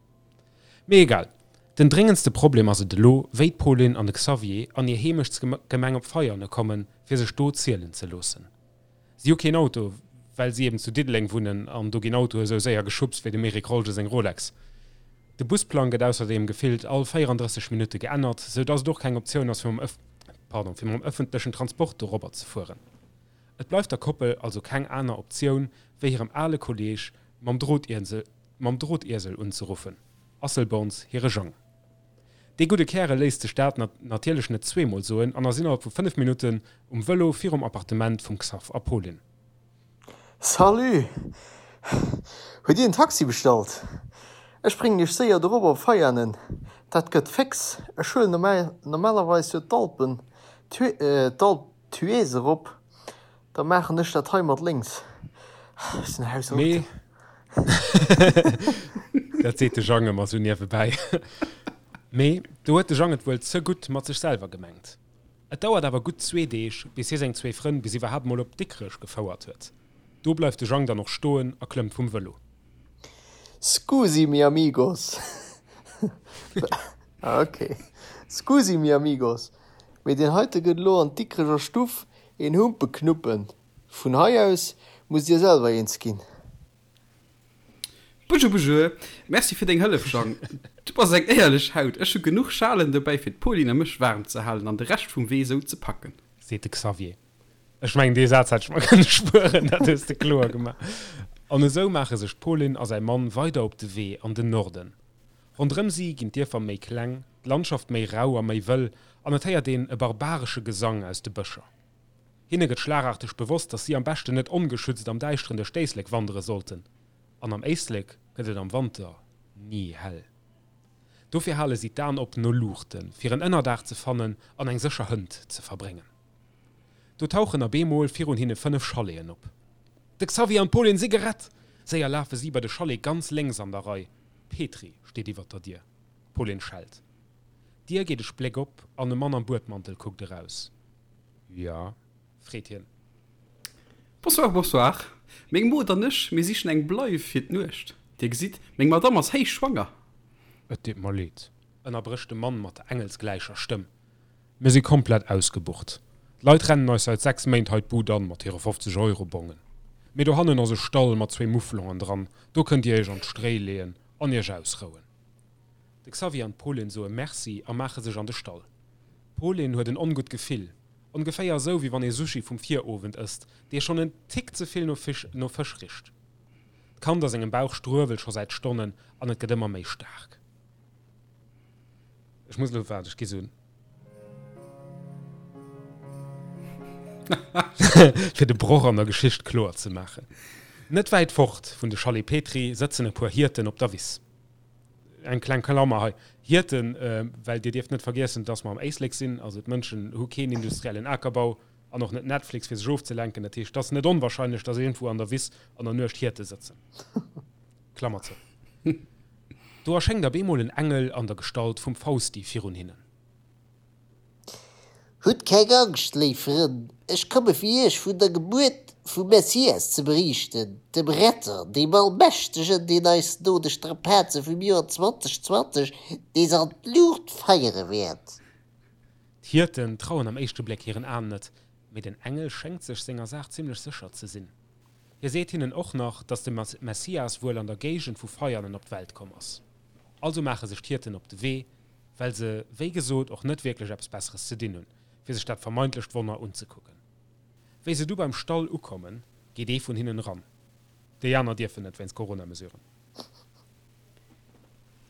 Mee egal, den dréngendste Problem ass et elo, wéi d'Pauline an de Xavier an hir Heemechtsgemeng op Veiane kommen, fir sech do zielen ze loossen. Si hu keen Auto, well si eben zu Diddeleng wunnen an do ginn Autoe sou séier geschubst wéi dem Eric Rolge seng Rolex. De Busplang gëtt ausserdeem gefillt all 34 Minutte geännert, sou dass et och keng Optioun ass fir mam pardon, fir mam ëffentlechen Transport dorobber ze fueren. Et bleift der Koppel also keng aner Optioun, wéi hirem ale Kolleeg mam Drotiesel mam Drotiesel unzeruffen. Asselborns hire Jang. Dee gudde Kärel léisst sech dat natierlech net zweemol soen an ass innerhalb vu 5 Minutten um Vëlo virum Appartement vum Xaph a Pauline. Salut! Hutt Dir en Taxi bestallt? Ech bréngen Iech séier dorop op Veianen. Dat gëtt féx. Ech huelen normalerweis jo d'Alpen, d'Alp d'Huez erop. Da maachen ech dat hei mat lénks. Ech sinn aus Auto. Mee dat seet de Jang ëmmer sou niewebäi. Mee do huet de Jang et wuel ze gutt mat sech selwer gemengt. Et dauert awer gutt zwee Deeg, bis hie seng zwee Frënn bis iwwerhaapt mol op Dikrech gefouert huet. Do bleift de Jang dann och stoen a klëmmt vum Vëlo. Scusi mi amigos. Ok. Scusi mi amigos, mee deen heite gëtt elo an d'Dikrecher Stuff Een Humpe knuppen. Vun hei aus musst dir selwer eens ginn. Bonjour, bonjour. Merci fir deng Hëllef, Jang. Du bass eng éierlech Haut. Ech hu genuch Schalen dobäi fir d'Pauline a mech waarm ze halen an de Rescht vum Wee sou ze packen. Seet de Xavier. Ech mengen, dee Saz hätt ech mer kënne spueren, dat hues de kloer gemaach. An esou maache sech d'Pauline a säi Mann weider op de Wee an den Norden. Ronderëm si ginn d'Dierfer méi kleng, d'Landschaft méi rau a méi wëll an et héiert een e barbaresche Gesang aus de Bëscher. Hinne gëtt schlagarteg bewosst, datt si am beschten net ongeschützt am Däischteren duerch d'Éislek wandere sollten. An am Éislek gëtt et am Wanter ni hell. Dofir hale si d'Aen op no Luuchten, fir en Ënnerdaach ze fannen an eng sécher Hënt ze verbréngen. Do tauchen a bemol virun hinne 5 Chaleten op. De Xavier an d'Pauline si gerett! Séier lafe si bei de Chalet ganz lénks an der Rei. Petri steet iwwert der Dier. D'Pauline schellt. D'Dier geet e Spléck op an e Mann am Buedmantel kuckt eraus. Ja? freet hien. Bonsoir, bonsoir. Meng Mod an ech, mir sichen eng Bleif fir d'Nuecht. Dir gesitt, meng Madamm ass héichschwanger. Et deet mer leed, ënnerbrécht de Mann mat der engelsgläicher Stëmm. Mir si komplett ausgebucht. D'Leit rennen eis säit 6 Méint hei d'Bud an mat hire 50 Euro Bongen. Mee dohannen ass e Stall mat zwee Mufflongen dran, do kënnt dir iech an d'Stréi leeën an iech ausrouen. De Xavier an d'Pauline soe Merci a maache sech an de Stall. D'Pauline huet en ongutt Gefill, ongeféier esou wéi wann ee Sushi vum Virowend ësst, dee schonn en Tick ze vill no Fësch richt. D'Kand a sengem Bauch struewelt scho säit Stonnen an et gëtt ëmmer méi staark. Ech muss elo, waart, ech gi sou fir de Broch an der Geschicht kloer ze maachen. Net wäit fort vun de Chalet Petry sëtzen e puer Hierten op der Wiss. Eng kleng Klammer hei, Hierten, well dir dierft net vergiessen, dass mer am Éislek sinn, also d'Mënschen hu keen industriellen Akerbau an och net Netflix fir sech ofzelenken. Dat heescht, et ass net onwahrscheinlech, dass iergendwou an der Wiss an der Nuecht Hierte sëtzen. Klammer zou. Do erschéngt op eemol en Engel an der Gestalt vum Fausti virun hinnen. Hutt keng Angscht, léif Frënn, ech komme fir iech vun der Gebuert vum Messias ze beriichten, dem Retter, deem Allmächtegen, deen eis no de Strapaze vum Joer 2020 nees an d'Luucht feiere wäert. D'Hierten trauen am éischte Bléck hiren Aen net, mee den Engel schéngt sech senger Saach zimmlech sécher ze sinn. Hie seet hinnen och nach, datt de Messias wuel an der Géigend vu Veianen op d'Welt komm ass. Also maache sech d'Hierten op de Wee, well se, wéi gesot, och net wierklech eppes Besseres ze dinn hunn, fir sech dat vermeintlecht Wonner unzekucken. Wéi se du beim Stall ukommen, geet ee vun hinnen eran. Déi aner dierfen net, wéinst Corona-Mesuren.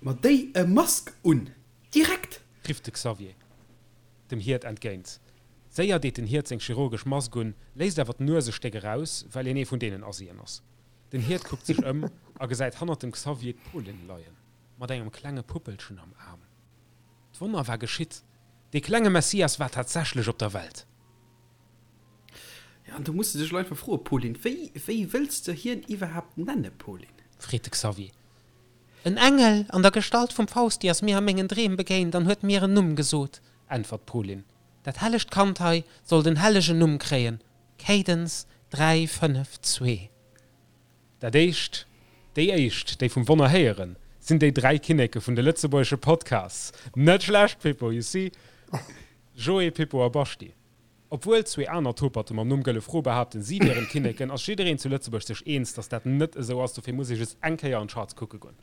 Ma déi e Mask un! Direkt! Rifft de Xavier dem Hiert entgéint. Séier deet den Hiert seng chirurgesch Mask un, léisst awer d'Nues e Stéck eraus, well hien ee vun deenen Asien ass. Den Hiert kuckt sech ëm a gesäit hannert dem Xavier d'Pauline leien, mat engem klenge Puppelchen am Aarm. D'Wonner war geschitt, dee klenge Messias war tatsächlech op der Welt. Jo, an do muss de dech elo einfach froen, Pauline, wéi, wéi wëlls de hien iwwerhaapt nenne, Pauline? Freet de Xavier. En Engel an der Gestalt vum Fausti ass mir a mengen Dreem begéint an huet mir en Numm gesot, äntwert d'Pauline. Dat hellegt Kand hei soll den hellegen Numm kréien, Cadence 3, 5, 2. Dat éischt, déi éischt, déi vum Wonner héieren, sinn déi 3 Kinneke vun de lëtzebuergesche Podcasts. Net schlecht, Pippo, you see? Joé, Pippo a Baschti. Obwuel zwee aner Toperte mam Numm Gëlle Fro behaapten, si wieren d'Kinneken, ass jiddereen zu Lëtzebuerg sech eens, datt dat net esou ass. Dofir muss ee just eng Kéier an d'Charts kucke goen.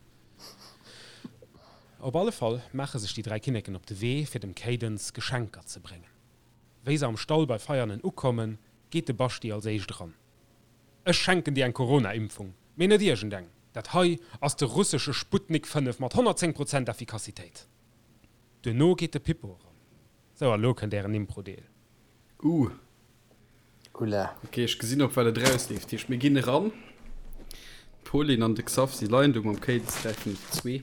Op alle Fall maache sech déi 3 Kinneken op de Wee, fir dem Cadence Geschenker ze bréngen. Wéi se am Stall bei Veianen ukommen, geet de Baschti als éischt eran. Ech schenken dir eng Corona-Impfung, mee net iergendeng! Dat hei ass de russesche Sputnik 5 mat 110 Prozent Effikassitéit. Duerno geet de Pippo eran. Sou, a lo kënnt ären Impro-Deel. Uh. Oula. Ok, ech gesinn op wat et erausleeft. Heescht mir ginn eran. D'Pauline an de Xav si leien do mam Cadence 3 5 2.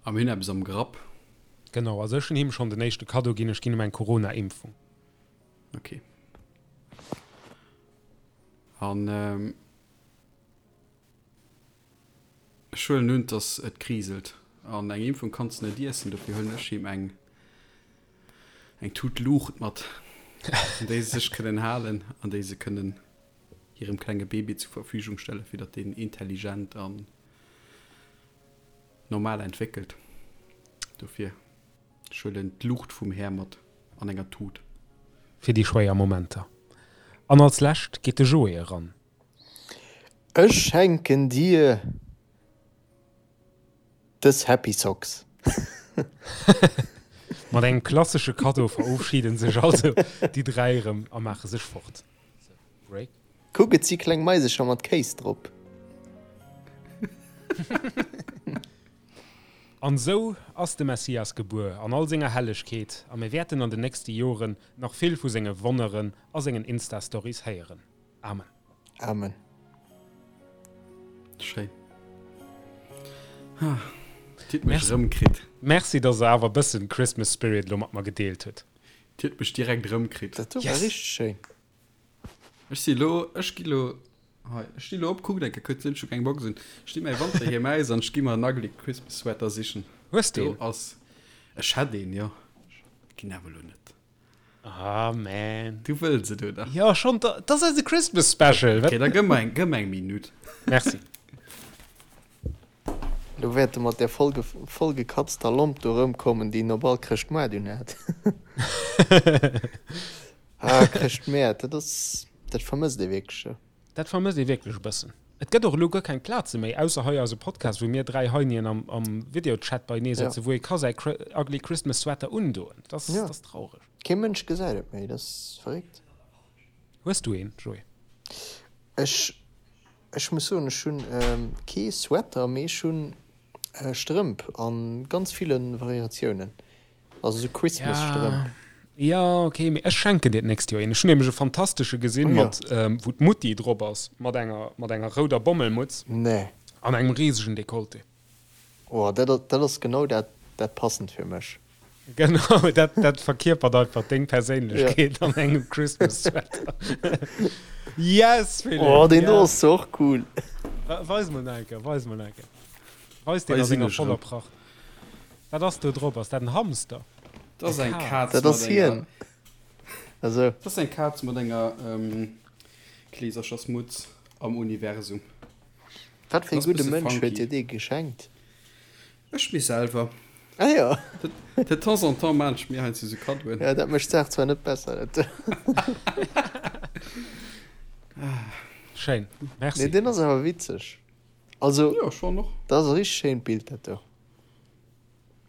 A mir hunn eppes am Grapp. Genau, also ech hunn him schonn den éischte Kaddo ginn, ech ginn him eng Corona-Impfung. Ok. An ech huelen un, dass et kriselt. An eng Impfung kanns de net iessen, dofir huelen ech him eng eng Tut Luucht mat, un déi se sech kënnen halen an déi se kënnen hirem klenge Baby zur Verfügung stellen, fir datt deen intelligent an normal entwéckelt. Dofir, ech huelen d'Luucht vum Här mat an enger Tut. Fir déi schwéier Momenter. An als lescht geet de Joé eran. Ech schenken dir dës Happy Socks. Mat engem klassesche Kaddo verofschiden sech also déi 3 erëm a maache sech fort. Break. Kuck, et si kleng Maisecher mat Kéis drop. An esou ass de Messias gebuer an all senger Hellegkeet, a mir wäerten an den nächste Joren nach vill vu senge Wonneren a sengen Insta-Stories héieren. Amen. Amen. Schéin. Ah, Dir hutt mech erëmkritt. Merci, dass der awer e bëssen Christmas Spirit elo mat mer gedeelt hutt. Dir hutt mech direkt erëmkritt. Dat do war richteg schéin. Ech si lo, ech gi lo, hei, ech sti lo op, kuckt eng Kéier kuerz, hunn ech scho keng Box un. Ech di mäi Wanterhiem aus an ech gi mer en ugly Christmas Sweater sichen. Hues de een? Do ass, ech hätt een, jo. Ginn awer lo net. Ah man. Du wëlls et, oder? Jo, schon, dat ass eise Christmas Special. Okay, da gëmm mer eng, gëmm mer eng Minutt. Merci. Lo wäert e mat där vollgekatzter Lomp do erëmkommen, déi en op all Chrëschtmoart unhat. Ah, Chrëschtmäert, dat ass, dat vermësst ee wierklech. Dat vermësst ee wierklech e bëssen. Et gëtt och elo guer keng Plaze méi, ausser hei eise Podcast, wou mir 3 Heinien am, am Videochat beienee sëtzen, wou ee ka säi Ugly Christmas Sweater undoen. Dat ass, dat ass traureg. Kee Mënsch gesäit et méi, dat ass verréckt. Hues du een, Joé? Ech, ech muss soen, ech hunn kee Sweater, mee ech hunn Strëmp a ganz ville Variatiounen. Also sou Christmas-Strëmp. Ja, ok, mee ech schenken dir d'nächst Joer een. Ech hunn nämlech e fantastesche gesinn, oh, mat, ähm, wou d'Mutti drop ass, mat enger, mat enger rouder Bommelmutz. Nee. An engem risegen Dekolleté. Oh, dat, dat ass genau dat, dat passend fir mech. Genau, dat, dat verkierpert einfach deng Perséinlechkeet ja. an engem Christmas-Sweater. yes, Philipp! Oh, deen do ass och cool. Weis mol nach eng Kéier, weis mol nach eng Kéier. Weis deen a senger voller Pracht. Wat ass do drop? Ass dat en Hamster? Dat ass eng Kaz Dat ass hien. Also. Dat ass eng Kaz mat enger Kleeserchersmutz am Universum. Wat fir e gudde Mënsch huet dir dee geschenkt? Ech mir selwer. Ah jo. De temps en temps maan ech mir heiansdo sou Kaddoen. Jo, dat mécht d'Saach zwar net besser. Schéin, merci. Nee, deen ass awer witzeg. Also, Jo, schon och. dat ass e richteg schéint Bild, dat do.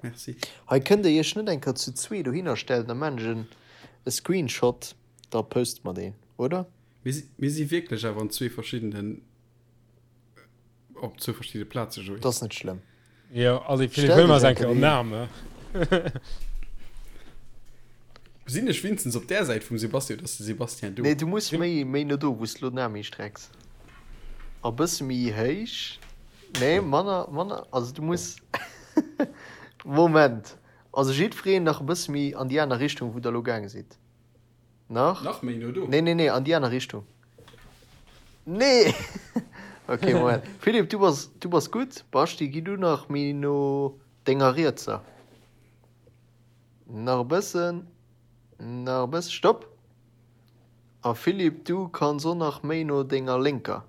Merci. Hei kënnt der iech net eng Kéier zu zwee dohinner stellen, da maan ech en e Screenshot, da poste mer deen, oder? Mir si, mir si wierklech awer an zwee verschiddenen, op zwou verschiddene Plaze, Joé. Dat ass net schlëmm. Jo, allez Philippe, huel mer eng Kéier en Arm. Sinn ech winstens op där Säit vum Sebastian, oder ass de Sebastian do? Nee, du muss méi, méi no do, wou s de lo den Aarm histrecks. A bësse méi héich. Nee, manner, manner, also du muss, Moment, also jiddwereen nach e bësse méi an déi aner Richtung, wou der elo gaange sidd. Nach? Nach méi no do? Nee, nee, nee, an déi aner Richtung. Nee! Ok, Moment. Philippe, du bass, du bass gutt. Baschti, gi du nach méi no denger rietser. Nach e bëssen, nach e bëssen, stopp! A Philippe, du kanns och nach méi no denger lénker.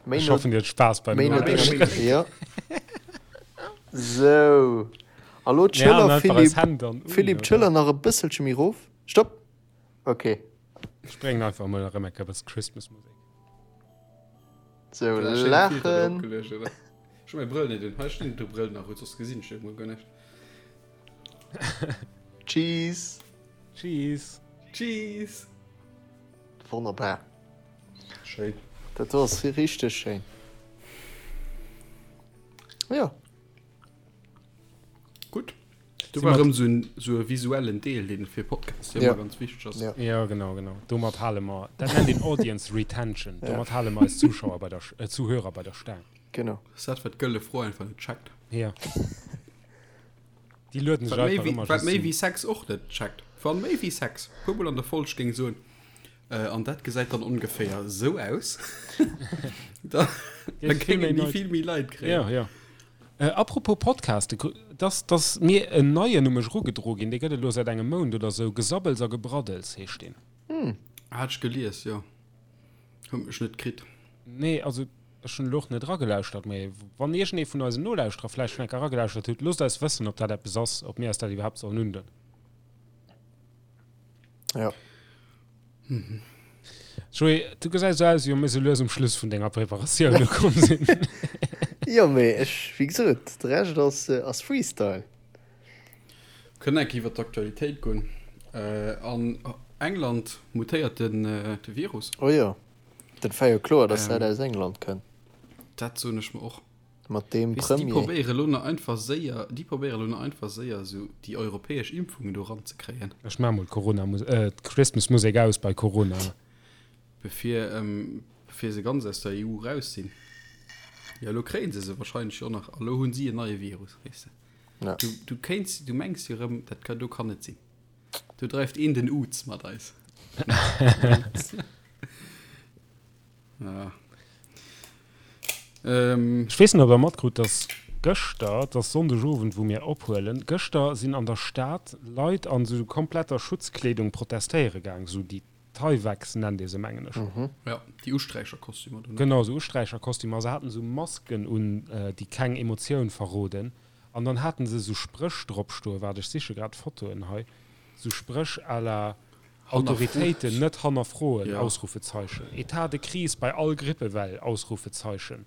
Méi Ech hoffen, dir hutt Spaass beim méi no denger, jo. Sou, a lo d'Schëller, Philippe, Philippe, d'Schëller nach e bësselche méi rof. Stopp! Ok. Ech bréngen einfach emol erëm eng Kéier e bësse Christmas-Musek. Sou, laachen. Ech hu mäi Brëll net un. Hei stinn de Brëll nach, soss gesinn ech jo guer näischt. Cheese. Cheese. Cheese. Wonnerbar. Schéin. Dat do ass richteg schéin. Jo. Gutt. Do war erëm sou en, sou e visuellen Deel, deen fir Podcasts jo ëmmer ganz wichteg ass. Ja. Ja, genau, genau. Domat hale mer, dat nennt een Audience Retention. Domat hale mer eis Zuschauer bei der, äh, Zuhörer bei der Staang. Genau. Ass dat, wat d'Gëlle Fro einfach net checkt. Ja. Déi lueden sech Wat méi einfach wéi, ëmmer wat just méi sou. wéi Sex och net checkt. Wann méi wéi Sex puer mol an der Folg géing soen, äh, an dat gesäit dann ongeféier sou aus, da, da Géif vill géingen méi déi Leit. vill méi Leit kréien. Ja, ja. Äh, apropos Podcast, dass, dass mir en neien u mech erugedro ginn, dee gëtt et elo säit engem Mount oder sou, Gesabbels a Gebraddels heescht deen. Hat ech gelies, jo. Huet mech net kritt. Nee, also ech hunn elo och net eragelauschtert, mee wann iergendee vun eisen Nolauschterer vläicht schonn eng Kéier eragelauschtert huet, loosst eis wëssen, ob dat eppes ass, ob mir eis dat iwwerhaapt sollen undinn. Ja. Joé, du gesäis esou aus, wéi wa mir sou lues um Schluss vun denger Preparatioun ukomm sinn. Jo, mee ech, wéi gesot, de Rescht ass, ass Freestyle. Kënnen enk iwwer d'Aktualitéit goen. An England mutéiert den de Virus. Oh jo, dat war jo kloer, dass dat aus England kënnt. Dat soen ech mer och. Mat deem Weess de, déi Premier. probéiere lo nach einfach séier, déi probéiere lo nach einfach séier esou déi europäesch Impfungen do ranzekréien. Ech maache mol d'Corona äh, d'Christmas-Musek aus bei Corona. Bevir, bevir se ganz aus der EU raus sinn. Jo, elo kréie se se wahrscheinlech jo och nach. A lo hunn si en neie Virus, weess de. Ja. Du, du kéints, du mengs jo erëm, dat ka, do kann net sinn. Do dreift een den Uz mat eis. Ja. Ähm. Ech weess net, ob der matkrut, dass gëschter, et ass Sonndegowend, wou mir ophuelen, gëschter sinn an der Stad Leit an esou kompletter Schutzkleedung protestéiere gaang, esou déi Tyveks nennt ee se, mengen ech. Ja, déi Usträicherkostümer do, ne? Genau, esou Usträicherkostümer. A se haten esou Masken un, déi keng Emotioun verroden. An dann haten se esou Spréch drop stoen, waart, ech siche grad d'Fotoen hei, esou Spréch à la Autoritéiten net hannerfroen! Ausrufezeichen. Etat de crise bei all Grippewell! Ausrufezeichen.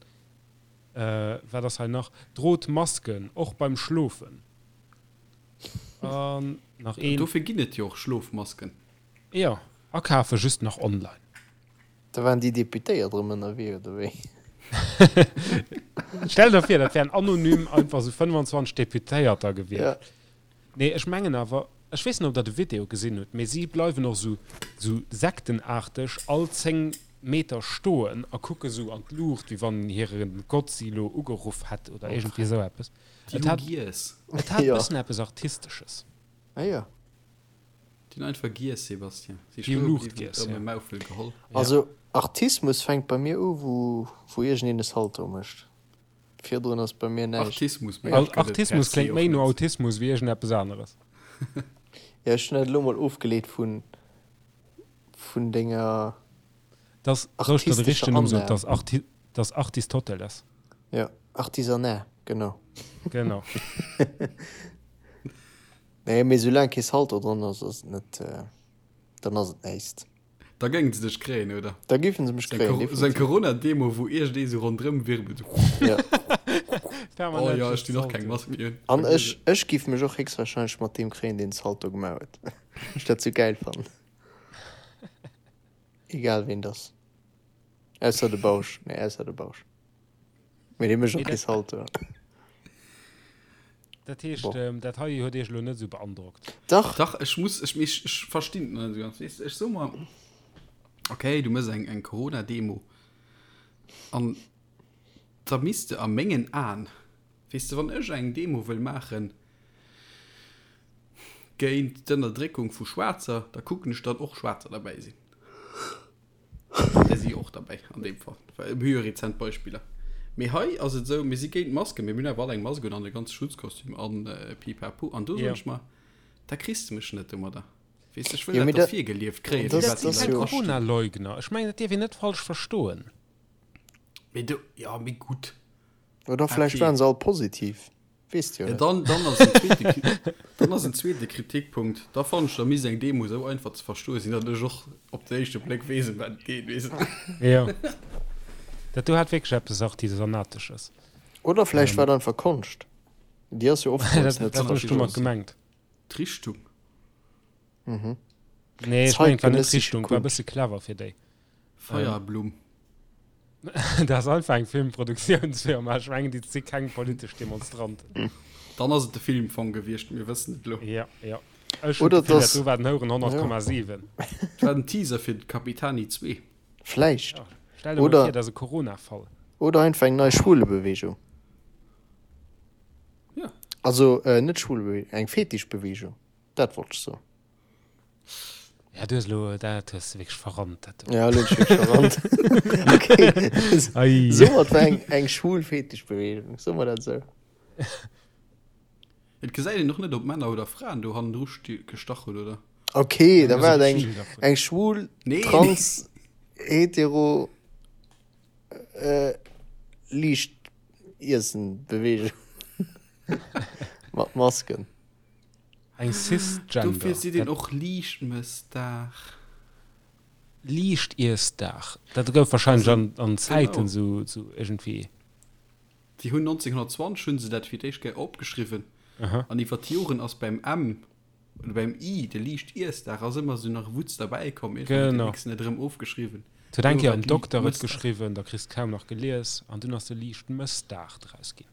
Wat ass hei nach? Drot Masken, och beim Schlofen. An nach een. Dofir ginn et jo och Schlofmasken. Jo, akafe just nach online. Da waren déi Deputéiert erëm ënnerwee, oder wéi? Stell der vir, dat wären anonym einfach sou 25 Deputéierter gewiescht. Nee, ech mengen awer, ech weess net, ob Der de Video gesinn hutt, mee si bleiwen och esou, esou sektenaarteg all 10 Meter stoen a kucke sou an d'Luucht, wéi wann hire Gott si elo ugeruff hätt oder iergendwéi esou eppes. Déi Et hu hat, giess. et hat e Jo. bëssen eppes Artistesches. Ah jo. Déi hunn einfach giess, Sébastien. Si Déi hu stoe Luucht bliwwen, giess, erëm ja. e Maufel geholl. Ja. Also Artismus fänkt bei mir u wou, wou iergendeen e Salto mécht. Virdrun ass bei mir näischt. Artismus, mee dat gëtt et per Artismus se kléngt och méi no net. Autismus wéi iergendeppes aneres. Jo, ech hunn dat elo mol ofgeleet vun, vun denger Dass, soll ech der de artistescher richtegen Numm soen? Anlag. Dass Arti, dass Artistoteles. Jo, Artisanat, genau. Genau. Nee, mee soulaang kee Salto dran ass, ass et net, dann ass et näischt. Da géingen se dech kréien, oder? Da géifen se mech kréien, definitiv. Sou eng Corona-Demo, wou iergendee sou ronderëm wirbelt. Ja. Oh jo, ech dinn och keng Mask méi un. An ech, ech giff mech och héchstwahrscheinlech mat deem kréien, deen Salto gemaach huet. Ech dat sou gäil fannen. Egal ween et ass. Ausser de Bausch. Nee, ausser de Bausch. Mee dee mécht och kee Salto. Dat heescht, dat hei huet Iech elo net esou beandrockt? Dach! Dach, ech muss, ech, ech, ech verstinn et net esou ganz. Weess de, ech so mer, okay, du méchs eng, eng Corona-Demo an da misst de a mengen Aen, weess de, wann ech eng Demo wëll maachen géint d'Ënnerdréckung vu Schwaarzer, da kucken ech, datt och Schwaarzer derbäi sinn. Där si jo och derbäi an deem Fall, well mir hu jo rezent Beispiller. Mee hei ass et esou, mir si géint d'Masken, mee mir hunn awer all eng Mask un an e ganze Schutzkostüm an pipapo. An do soen ech mer, da kriss de mech net domadder. Weess de, ech wëll dat da virgelieft kréien, fir wat déi Dat Leit astinn. Corona-Leugner, ech mengen, dat dierf een net falsch verstoen. Mee do, jo, mee gutt. Oder vläicht Okay. waren se all positiv. Weess de jo Ja, net. dann, dann ass en zweete, dann ass en zweete Kritikpunkt, da fannen ech, da misst eng Demo esou einfach ze verstoe sinn, datt ech och op den éischte Bléck weess, ëm wat et geet, weess de. Jo. Dat do hat wierklech eppes Artisanatesches. Oder vläicht war et einfach Konscht. Déi ass jo oftmals Dat net ze dat hunn ech domat verstoen. gemengt. D'Richtung. Nee, ech mengen, et war net Zeitgenössische d'Richtung, et war e Kunst. bësse clever fir déi. Feierblumm. Dat ass einfach eng Filmproduktiounsfirma. Ech mengen, déi si keng politesch Demonstranten. Dann ass et de Filmfong gewiescht, mir wëssen et elo. Ja, ja. Ech hunn Oder d'Gefill, dat dass do war den Houren 100,7. Et war den Teaser fir Capitani 2. Vläicht. Ja, stell der mol Oder vir, dat ass e Corona-Fall. Oder einfach eng nei Schwulebewegung. Ja. Also net Schwulebewegung, eng Fetischbewegung, dat wollt ech soen. Ja, du hues elo, dat hues de wierklech verrannt, dat do. Ja, elo hunn ech wierklech verrannt. Okay. Ei. Soe mer, et war eng, eng schwul Fetischbewegung. Soe mer dat esou. Et gesäit een och net, ob Männer oder Fraen do hannendru gestach hunn, oder? Okay, da Eng war et eng, Vill davon. eng schwul, Nee, trans, hetero, äh, liicht Iessen-Bewegung. Mat Masken. Eng Cisgender. Dofir seet een och Liichtmëssdag. Liichtiessdag. Dat gouf wahrscheinlech an, an Zäiten sou, sou iergendwéi. Déi hunn 1920 hunn se dat fir d'éischt Kéier opgeschriwwen. Aha. An iwwer d'Joren ass beim M oder beim I, de Liichtiessdag, ass ëmmer sou nach e Wutz derbäi komm. Iergendwann huet Genau. de Nixon et erëm ofgeschriwwen. Et huet eng Duerno Kéier war en et Dokter et Liichtmëssdag. geschriwwen, da kriss de kaum nach gelies an dunn ass de Liichtmëssdag draus ginn.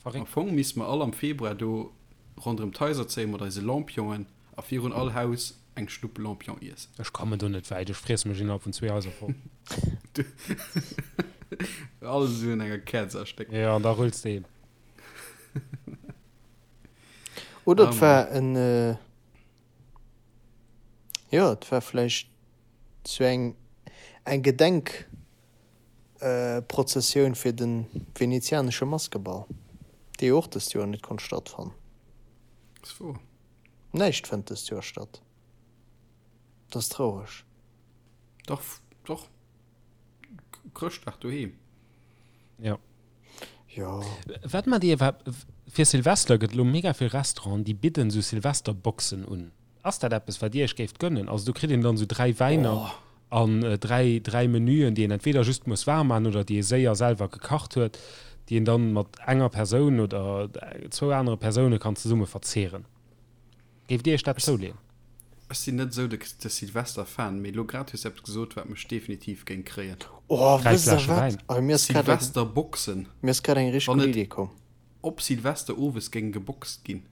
Am Verréckt. Fong misste mer all am Februar do ronderëm d'Haiser zéien mat eise Lampionen a virun all Haus eng Schnupp Lampion iessen. Ech kommen do net wäit, ech friesse mech innerhalb vun zwee Haiser voll. Alles esou un enger Käerz erstéckt. Jo, an da rulls de heem. Oder Ah, et war en, jo, et war vläicht sou eng eng Gedenk. Prozessioun fir de venezianesche Maskeball, dee jo och dëst Joer net konnt stattfannen. Ass wouer. Näischt fënnt dëst Joer statt. Dat ass traureg. Dach, dach. Chrëschtdag doheem. Jo. Jo. Wat mat dir? Fir Silvester gëtt elo mega vill Restauranten, déi bidden esou Silvesterboxen un. Ass dat eppes, wat Dir Iech géift gönnen? Also do kritt een dann esou 3 Wäiner an 3, 3 Menüen, déi een entweder just muss waarm maachen oder déi ee séier selwer gekacht huet, déi een dann mat enger Persoun oder zwou anere Persoune kann zesumme verzehren. Géift Dir Iech dat zouleeën? Ech sinn net esou de Silvester-Fan, mee elo grad hues de eppes gesot, wat mech definitiv géing kréien. Oh, 3 wësst der Fläsche wat? Wäin. Oh, mir ass grad eng, Silvesterboxen. mir ass grad eng richteg Wann gutt et Idee komm. op Silvester owes géing geboxt ginn.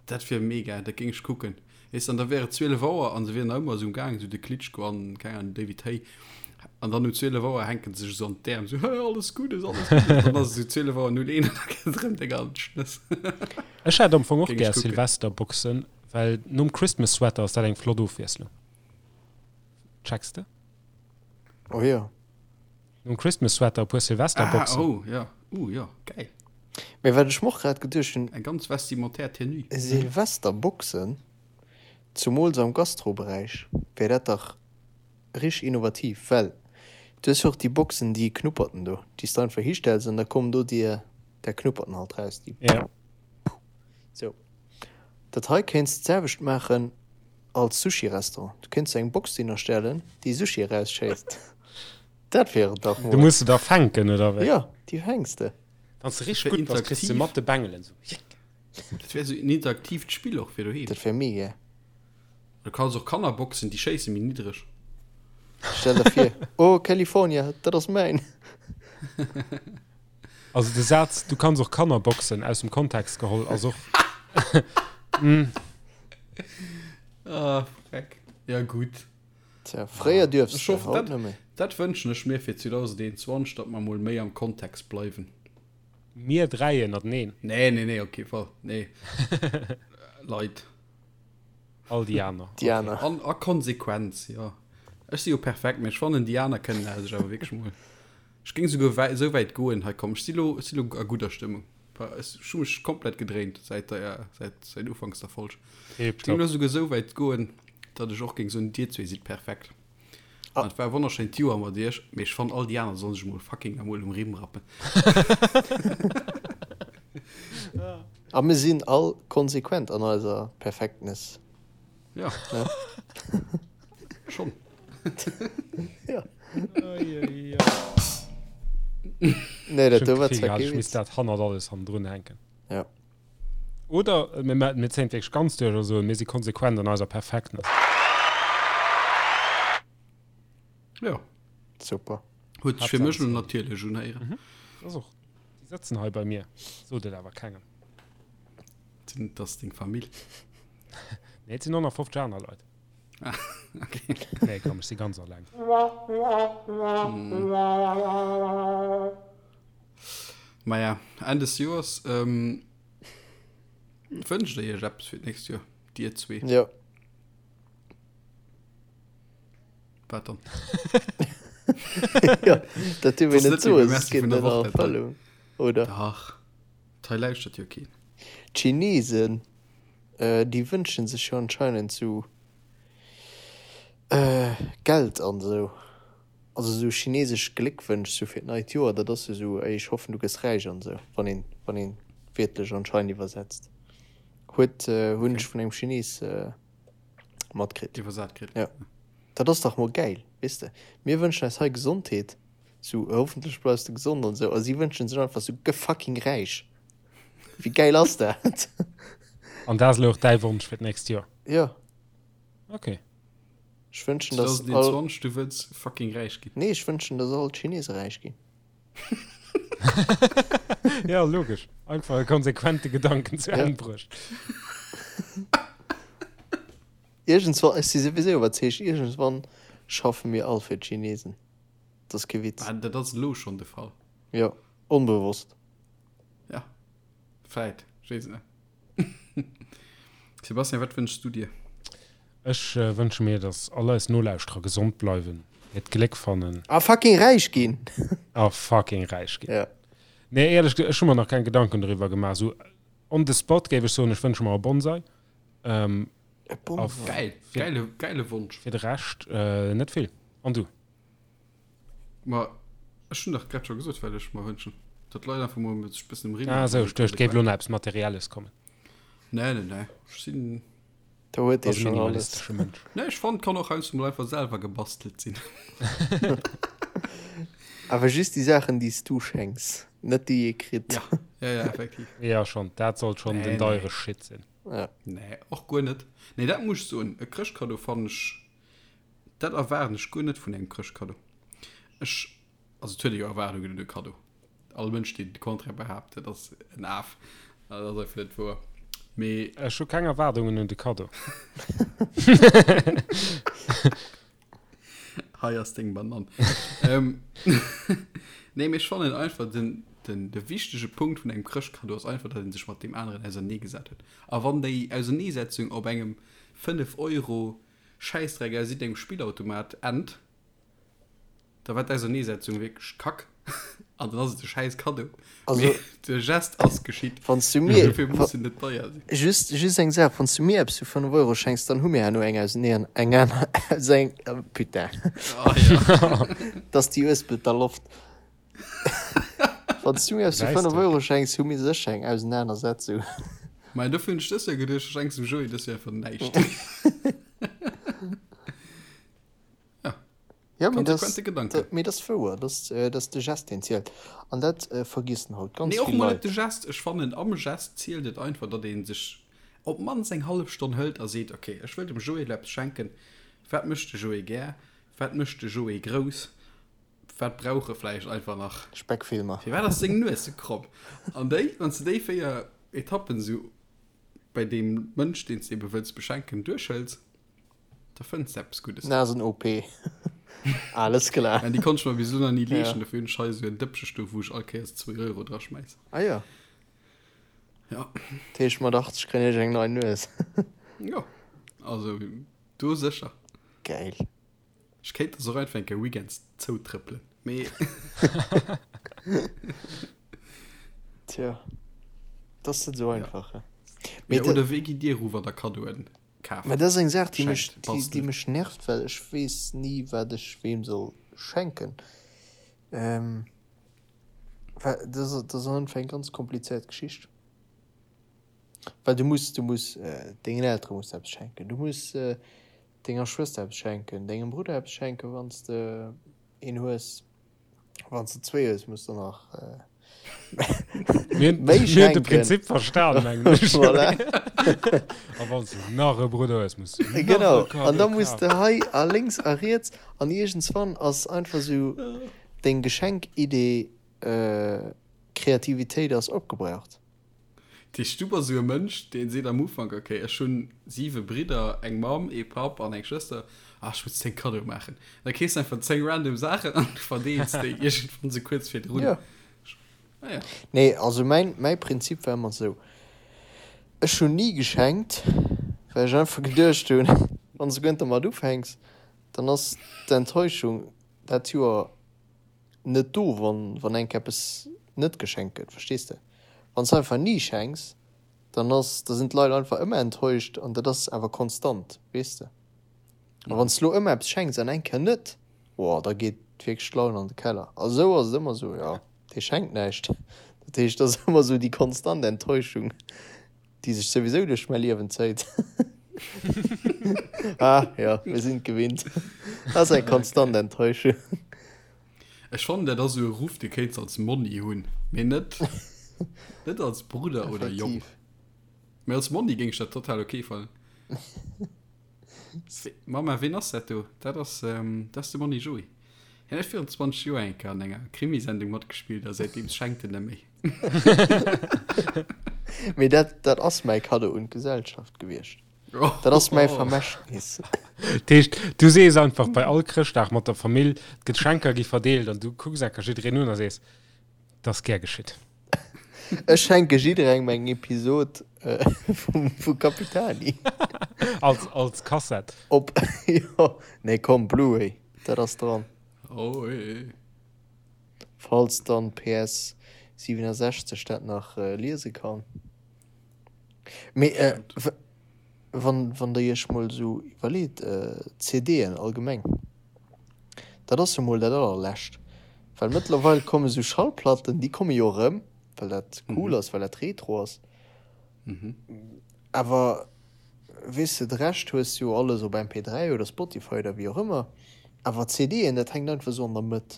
Dat wier mega, dat géing ech kucken. Weess de, an da wär et 12 Auer an se wieren nach ëmmer esou um Gaang, esou de Klitschko an, keng Ahnung, David Haye. An dann um 12 Auer hänken se sech esou an d'Äerm, esou, Hä, alles Guddes, alles Guddes. An dann ass et esou 12 Auer 01 an da gëtt et erëm deng al Schnëss. Ech hätt am Fong och Géing ech gär kucken. Silvesterboxen, well nom Christmas Sweater ass dat eng flott Ofwiesslung. Checks de? Oh jo. Nom Christmas Sweater e puer Ah, Silvesterboxen. oh, ja. Uh, jo, geil. Mee wat ech mer och grad geduecht hunn, Eng ganz vestimentaire Tenue. Silvesterboxen, zumools am Gastroberäich, wär dat dach richteg innovativ, well du hues jo och déi Boxen, déi Knupperten do, déi s de einfach histells an da kommen do dir där Knupperten halt raus, déi Ja. sou. Dat hei kéints de d'selwecht maachen als Sushi-Restaurant, du kéints eng Box dohinner stellen, déi Sushi erausschéisst. Dat wier et dach Du mol. muss se da fänken, oder wéi? Jo, déi fänks de. Wann s de richteg Fir gutt bass, kriss de interaktiv. mat de Bengelen sou. Jick. Dat wär sou en interaktiivt Spill och fir doheem. Dat wär mega. Du kanns och Kanner boxen, déi schéisse méi niddreg. Stell der vir, oh California, dat ass mäin. Also de Saz du kanns och Kanner boxen aus dem Kontext geholl ass och. Ah, freck. Ja gutt. Tja, fréier duerfs Ech de, hoffen, haut dat, net méi. dat wënschen ech mir fir 2021, datt mer mol méi am Kontext bleiwen. Mir dräi ënnerteneen. Nee, nee, nee, op kee Fall. Nee. Leit. All déi aner. Déi aner. An a Konsequenz, jo. Ech si jo perfekt, mee ech fannen, déi aner kënnen sech awer wierklech mol. Ech géing souguer wäi, esou wäit goen, hei komm, ech si lo, ech si lo a gudder Stëmmung. Ech hu mech komplett gedréint säit der, säit, säit ufanks der Folg. Ech géing lo souguer esou wäit goen, datt ech och géing soen, dir zwee sidd perfekt. An et war e wonnerschéint Joer mat iech, mee ech fannen, all déi aner sollen sech mol fucking emol um Rimm rappen. A mir sinn all konsequent an eiser Perfektness. Ja. Schonn. Ja. Nee, dat do war zwar kee Ech misst Witz. dat hannert alles hannendrun hänken. Ja. Oder mir ma mir zéien et wierklech ganz duerch a soen, mir si konsequent an eiser Perfektness. Ja. Super. Huet sech fir mech elo natierlech unhéieren. Mhm. Ass och. Déi sëtzen hei bei mir. Sot et awer kengem. Sinn dass deng Famill? Nee, et sinn 150 aner Leit. Ah, okay. Nee, komm, ech si ganz alleng. Maja, Enn des Joers ähm, wënscht der iech eppes fir d'nächst Joer, dir zwee? Jo. Wat dann? Ja, dat dierf een Das net ass net méi soen, beim soss Merci geet vun et der an Woch, dat hei. Erfëllung, oder? Dach, hei lauschtert jo keen. D'Chinesen, déi wënschen sech jo anscheinend sou Geld an esou. Also esou chinesesch Gléckwënsch sou fir d'neit Joer, dat ass jo sou, ey ech hoffen du gëss räich an esou, wann een, wann een wiertlech anscheinend iwwersetzt. Huet, hunn ech vun engem Chines matkritt. Iwwersat kritt. Jo. Dat ass dach mol gäil, weess de. Mir wënschen eis hei Gesondheet, sou hoffentlech bleifs de gesond an esou, a si wënschen sech einfach sou gëff fucking räich. Wéi gäil ass dat? An dat ass elo och däi Wonsch fir d'nächst Joer? Jo. Okay. Ech wënschen, dass all. 2021, du wëlls fucking räich ginn? Nee, ech wënschen, dass all d'Chinese räich ginn. Ja, logesch. Einfach e konsequente Gedanken zu Enn bruecht. Iergendswann, ech si souwisou iwwerzeegt, iergendswann schaffe mir all fir d'Chinesen. Dat ass kee Witz. Ah, dat ass elo schonn de Fall. Jo, onbewosst. Ja, vläit, ech weess et net. Sebastian, wat wënschs du dir? Ech wënsche mir, dass all eis Nolauschterer gesond bleiwen, hiert Gléck fannen. A fucking räich ginn! A fucking räich ginn. Ja. Nee, éierlech gesot, ech hu mer nach keng Gedanken doriwwer gemaach. Esou on the spot géif ech soen, ech wënsche mer e Bonsai. E Bonsai? Geil, geile, geile Wonsch. Fir de Rescht net vill. An du? Ma ech hunn dach grad scho gesot, wat ech mer wënschen. Datt d'Leit einfach mol sech e bëssen um Rimm Ah esou, ech duecht, et géif elo nach eppes Materielles kommen. Nee, nee, nee. Ech sinn. Do huet ee Ass e schonn alles. minimalistesche Mënsch. Nee, ech fannen, et kann och heiansdo mol einfach selwer gebastelt sinn. Awer just déi Saachen, déi s du schenks, net déi ee kritt. Ja, ja, ja, effektiv. Ja, schonn. Dat sollt schonn Nee, den nee. deiere Shit sinn. Ja. Nee, och guer net. Nee, dat muss ech soen, e Chrëschtkaddo fannen ech Dat erwaarden ech guer net vun engem Chrëschtkaddo. Ech, also et huet ee jo Erwaardungen un e Kaddo. All Mënsch, deen de Contraire behaapt, dat ass en Af. Dat ass einfach net wouer. Mee. Ech hu keng Erwaardungen un de Kaddo. Hei ass deng Banann. Nee, mee ech fannen einfach den, den, de wichtege Punkt vun engem Chrëschtkaddo ass einfach, datt ee sech mat deem aneren auserneegesat huet. A wann déi Auserneesetzung op engem 5 Euro Schäissdreck aus iddengem Spillautomat ennt, da war d'Auserneesetzung wierklech kack an dann ass et e schäiss Kaddo. Also, Mee de Gest ass geschitt. Wann s du mir, Dofir muss en net deier sinn. Just, just eng Saach, Wann s du mir eppes fir 5 Euro schenks, dann hu mir herno eng Auseneen, eng aner, eng, putain, Ah ja. dass déi Uespelter Loft. Wann s du mir eppes fir 5 Euro schenks, hu mir sécher eng Ausenanersetzung. Mä dofir hunn ech dës Joer geduecht, ech schenks dem Joé dës Joer einfach näischt. Ja, Ja, mee dat konsequente Gedanken. mee dat ass wouer, dat ass, dat ass de Gest, deen zielt. An dat vergiessen haut ganz Nee, och vill mol net Leit. de Gest. Ech fannen, am Gest zielt et einfach, datt ee sech op d'mannst eng hallef Stonn hëlt a seet, okay, ech wëll dem Joé elo eppes schenken. Wat mécht de Joé gär? Wat mécht de Joé grouss? Wat brauch e vläicht einfach nach? Speckfilmer. Firwat ass seng Nues sou kromm? An déi, wann s de déi 4 Etappen sou bei deem Mënsch, deen s de ebe wëlls beschenken, duerchhëls, da fënns de eppes Guddes. Nasen-OP. Alles klar. Mä déi konnt ech mer bis elo nach ni leeschten, Ja. dofir hunn ech hei esou en Dëppche stoen, wou ech all Kéiers 2 Euro draschmäiss. Ah jo. Ja. Dat heescht, mat 80 kréien ech eng nei Nues. Jo, also do sécher. Gäil. Ech kéint der se och einfach eng Kéier weekends zoutrëppelen, mee. Tja, dat ass net esou einfach, he. Mee oder wéi gitt Dir eru, wann Der Kaddoen kaaft? Mä dat ass eng Saach, déi mech, Schenkt, déi, déi bastelt? mech nervt, well ech weess ni, wat ech weem soll schenken. Well dat ass, dat ass einfach eng ganz komplizéiert Geschicht. Well du muss, du muss dengen Eltere muss de eppes schenken, du muss denger Schwëster eppes schenken, dengem Brudder eppes schenken, wann s de een hues. Wann s de zwéi hues, muss de nach. Mir hunn Méi mir hunn de schenken. Prinzip verstan, mengen ech. Voilà. A wann s de nach e Brudder hues, muss du nach e Genau. An Kaddo da muss de kafen. hei a lénks a riets an iergendswann ass einfach sou deng Geschenkidee, Kreativitéit ass opgebraucht. Dat heescht, du bass esou e Mënsch, dee seet am Ufank, ok, ech hunn siwe Bridder, eng Mamm, ee Papp an eng Schwëster, ah, ech muss 10 Kaddoe maachen. Da keefs de einfach 10 random Saachen an du verdeels déi iergendwann esou kuerz virdrun. Jo. Ah ja. Nee, also mäin, mäi Prinzip war ëmmer esou, ech hunn ni geschenkt, well ech einfach geduecht hunn, wann s de guer dermat ufänks, dann ass d'Enttäuschung dat Joer net do, wann, wann enk eppes net geschenkt gëtt, verstees de? Wann s de einfach ni schenks, dann ass, da sinn d'Leit einfach ëmmer enttäuscht an dat ass awer konstant, weess de? A wann s de lo ëmmer eppes schenks an eng Kéier net, oh, da geet wierklech d'Laun an de Keller. A sou ass et ëmmer sou, jo, dee schenkt näischt. Dat heescht, et ass ëmmer sou déi konstant Enttäuschung, déi sech souwisou duerch mäi Liewen zéit. Ah, jo, mir sinn et gewinnt. Dat ass eng konstant Enttäuschung. Ech fannen dat ass esou e Ruff dee kéints als Monni hunn, mee net net als Brudder oder Jong. Mee als Monni géing ech dat total ok fannen. Mama, ween ass dat do? Dat ass dat ass de Monni Joé. Hien huet virun 20 Joer eng Kéier an enger Krimisendung matgespillt a säitdeems schenkt en net méi. Mee dat dat ass mäi Kaddo un d'Gesellschaft gewiescht. Dat ass mäi Vermächtnis. Dat heescht, du sees einfach bei all Chrëschtdag mat der Famill, d'Geschenker gi verdeelt an du kucks enker jiddereen un a sees, 't ass gär geschitt. Ech schenke jidderengem eng Episod vu Capitani. Als, als Kassett. Op, jo, nee komm, Blu-ray, dat ass dran. Oh, eh. Falls dann PS 67 dat nach liese kann. Mee wann, wann der iech mol esou iwwerleet, CDen allgemeng, dat ass jo mol dat allerlescht, well mëttlerweil komme sou Schallplatten, déi komme jo erëm, well dat cool ass, well dat retro ass, awer weess de, de Rescht hues jo alles op MP3 oder Spotify oder wéi och ëmmer, awer CDen, dat hänkt einfach esou an der Mëtt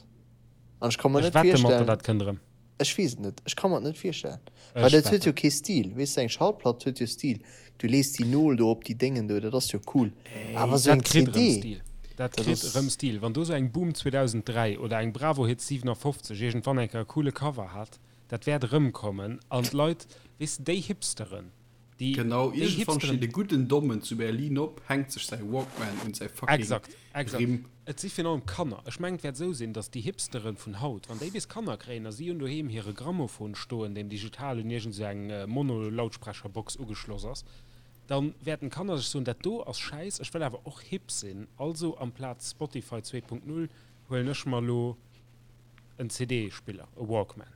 an ech ka mer Ech net wette mat der, virstellen. dat kënnt erëm. Ech weess et net, ech ka mer et net virstellen. Ech Well dat huet wetten. jo kee Stil, weess de, eng Schallplatt huet jo Stil. Du lees déi Nol do op déi Déngen do, dat ass jo cool. Awer esou Dat eng kritt erëm CD, Stil. Dat dat kritt ass. erëm Stil. Wann do sou eng Boom 2003 oder eng Bravo Hits 57 iergendwann eng Kéier e coole Cover hat, dat wäert erëmkommen an d'Leit, weess de, déi Hipsteren, déi, Genau, déi iergendwann Hipsteren, steet e gudden Dommen zu Berlin op, hänkt sech säi Walkman un säi fucking Exakt, exakt. Rimm. Et si virun allem Kanner. Ech mengen, et wäert esou sinn, datt déi Hipsteren vun haut, wann déi bis Kanner kréien a si hunn doheem hire Grammophon stoen, deen digital un iergend esou eng Mono-Lautsprecherbox ugeschloss ass, da wäerten d'Kanner sech soen, dat do ass Schäiss, ech wëll awer och hip sinn, also amplaz Spotify 2.0 huelen ech mer elo en CD-Spiller, e Walkman.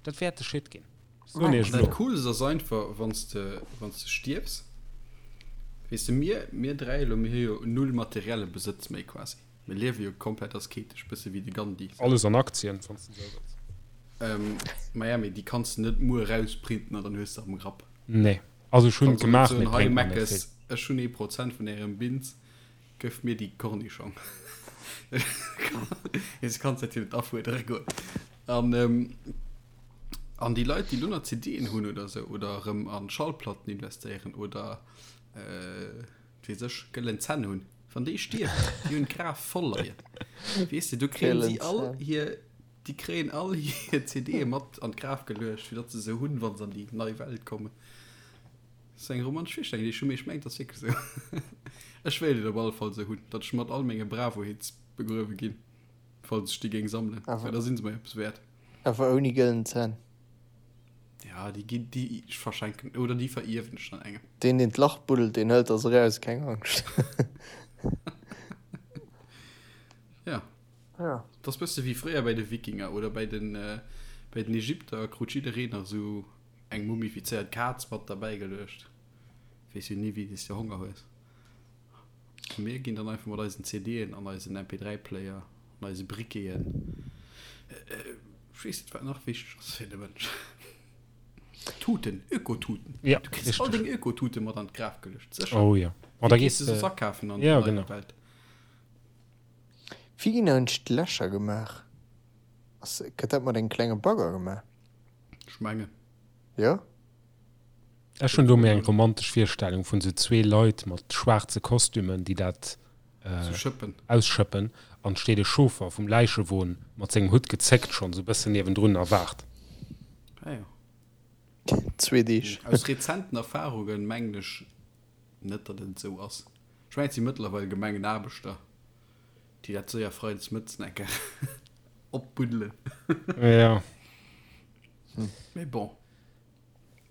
Dat wäert de Shit ginn. Soen iech Dat elo. Coolst ass einfach, wann s de, wann s de stierfs, weess de, mir, mir dräi elo, mir hu jo null materielle Besëtz méi quasi. Mir liewe jo komplett asketesch, bësse wéi de Gandhi. Alles an Aktien, wann s de esou wëlls. Ähm, maja, mee déi kanns de net muer erausprinten an dann hues de am Grapp. Nee. Also ech hunn Kanns et och net gemaach, soen, mee et hei bréngt mer net Meckes, vill. ech hunn ee Prozent vun ärem Bins, Gëff mir déi Kornischong. Du kanns dat jo net afuerdere goen. An, ähm, an déi Leit, déi lo nach CDen hunn oder sou, oder erëm an Schallplatten investéieren oder, äh, wat weess ech, gëllen Zänn hunn, wann déi stierwen, déi hunn d'Graf voll leien. Weess de, do kréien si all hir, déi kréien all hir CDe mat an d'Graf geluecht, fir datt se se hunn, wa se an déi nei Welt kommen. Dat ass eng romantesch Virstellung, déi ech hu, mee ech mengen, et ass wierklech esou. Ech wéilt et op alle Fall esou hunn, datt ech mat all menge Bravo-Hits begruewe ginn, falls ech déi géing sammelen, well da si se mer eppes wäert. Awer ouni gëllen Zänn. Ja, déi ginn, déi ech verschenken oder déi verierwen ech dann engem. Deen, deen d'Lach buddelt, deen hëlt der se eraus, keng Angscht. Ja. Ja. Dat ass bësse wéi fréier bäi de Wikinger oder bäi den, bäi den Ägypter krut jiddereen nach esou Eng mumifizéiert Kaz mat derbäi geluecht. Weess jo ni wéi s de Honger hues. A mir ginn dann einfach mat eisen CDen an eisen MP3 Player an eise Briqueten. Ech weess net wat nach wichteg ass fir de Mënsch. Tuten, Ökotuten. Ja, Du kriss all richteg. deng Ökotute mat an d'Graf geluecht, sécher. Oh jo. Oh, da Wéi gees gees de de. soss akafen an Ja, der neier genau. Welt? Wéi ginn eigentlech d'Lächer gemaach? Ass, gëtt dat mat engem klenge Bagger gemaach? Ech mengen. Jo. Ech hunn do méi eng romantesch Virstellung vun sou zwee Leit mat schwaarze Kostümen, déi dat ausschëppen, an steet e Chauffer vum Läichewon mat sengem Hutt gezéckt schonn sou bëssen niewendrun a waart. Ah jo. Zwee Deeg. Aus rezenten Erfahrungen mengen ech net, datt et esou ass. Ech mengen, et si mëttlerweil Gemengenaarbechter, déi dat séier freides mëttes eng Kéier opbuddelen. Jo. Mee bon.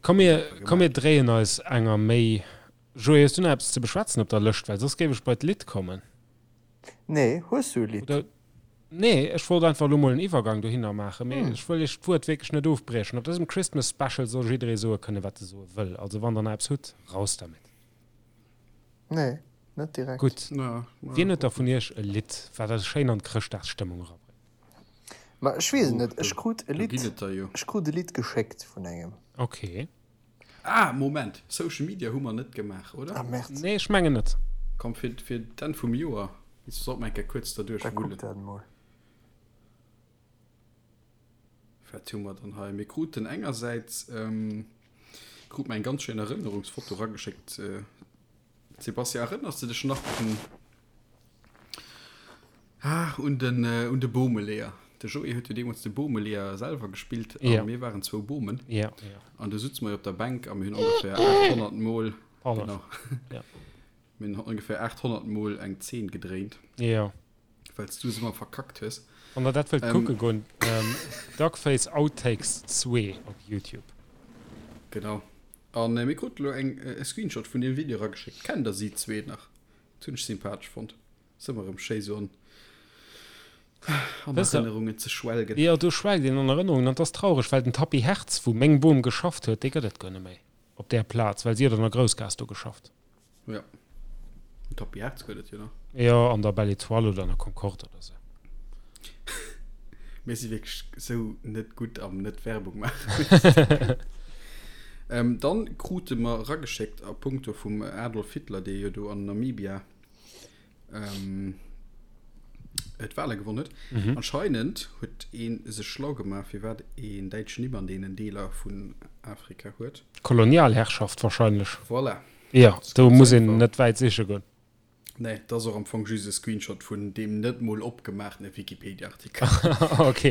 Komm mir, komm mir dréien eis enger méi. Joé, hues du nach eppes ze beschwätzen op der Lëscht? Well soss géif ech bei d'Lidd kommen. Nee, hues du e Lidd? Oder, nee, ech wollt einfach elo mol en Iwwergang dohinner maachen, mee ech wëll iech d'Wuert wierklech net ofbriechen. Op dësem Christmas Special soll jidderee soe kënnen, wat e soe wëll. Also wann der nach eppes hutt, raus dermit. Nee, net direkt. Gutt. Wien huet da vun iech e Lidd, wat eis schéin an d'Chrëschtdagsstëmmung erabréngt? Ma ech weess et net, ech krut e Lidd, ech krut e Lidd geschéckt vun engem. Ok. Ah, Moment, Social Media hu mer net gemaach, oder? Ah, Merde. Nee, ech mengen net. Komm, fir, fir d'Enn vum Joer sollt mer eng Kéier kuerz derduerch Da kuck wullen. dat emol. Wat hu mer dann hei? Mir kruten engersäits, krut mer eng ganz schéin Erënnerungsfoto erageschéckt. Sebastian, erënners de dech nach un, ah, un den, un de Boomeleeër? De Joé huet jo deemools de Boomeleeër selwer gespillt a Ja. mir waren zwou Boomen. Ja, ja. An du sutze mer jo op der Bänk a mir hunn ongeféier 800 Mol, Pardon. genau, Ja. mir hunn ongeféier 800 Mol eng Zeen gedréint. Ja. Well s du se ëmmer verkackt hues. Wann der dat wëllt kucke goen, Duckface Outtakes 2 op Youtube. Genau. An mir kruten elo eng e Screenshot vun deem Video erageschéckt. Kennt der si zwee nach? Dat hunn ech sympathesch fonnt. Ass ëmmer erëm schéi sou an an Erënnerungen ze schwelgen. Jo, do schwelgt een an Erënnerungen an 't ass traureg, well den Tapis Hertz, wou meng Bom geschafft huet, dee gëtt et guer net méi op där Plaz, well si huet an der Groussgaass do geschafft. Ja. Den Tapis Hertz gëtt et jo nach. Jo, an der Belle Etoile oder an der Concorde oder sou. Mir si wierklech sou net gutt am net Werbung maachen. ähm, dann krute mer erageschéckt a punkto vum Adolf Hitler, dee jo do an Namibia ähm, d'Wale gewonnen huet. Mhm. Anscheinend huet ee sech schlau gemaach, firwat een däitsch Nimm an deenen Deeler vun Afrika huet. Kolonialherrschaft wahrscheinlech. Voilà. Jo, do muss een net wäit siche goen. Nee, dat ass och am Fong just e Screenshot vun deem net mol opgemaachtene Wikipedia-Artikel. Ok.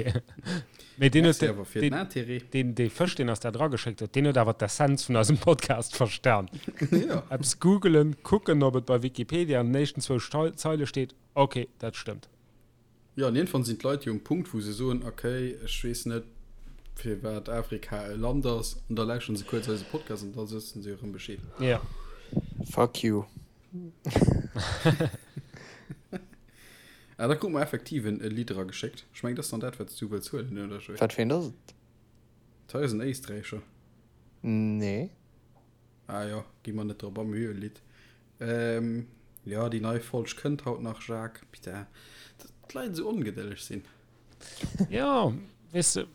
Mee deen huet, Merci awer fir den Intérêt. deen, dee Fësch, deen eis dat erageschéckt huet, deen huet awer d'Essenz vun eisem Podcast verstan. Jo. Eppes googelen, kucken, ob et bei Wikipedia an den éischten zwou Zeile steet, ok, dat stëmmt. Jo, an iergendwann sinn d'Leit jo um Punkt, wou se soen, ok, ech weess net, firwat Afrika e Land ass, an da lauschteren se kuerz eise Podcast an da wëssen se erëm Bescheed. Jo. Fuck you. Ah, da krute mer effektiv en e Lidd erageschéckt. Ech mengen, dat ass dann dat, wat s du wëlls huelen, oder, Joé? Wat fir eent ass et? Dat hei ass en Éisträicher. Nee. Ah jo, gi mer net drop a, mir hu jo e Lidd. Ähm, jo, déi nei Folg kënnt haut nach, Jacques. Putain, datt d'Leit esou ongedëlleg sinn. Jo, weess de,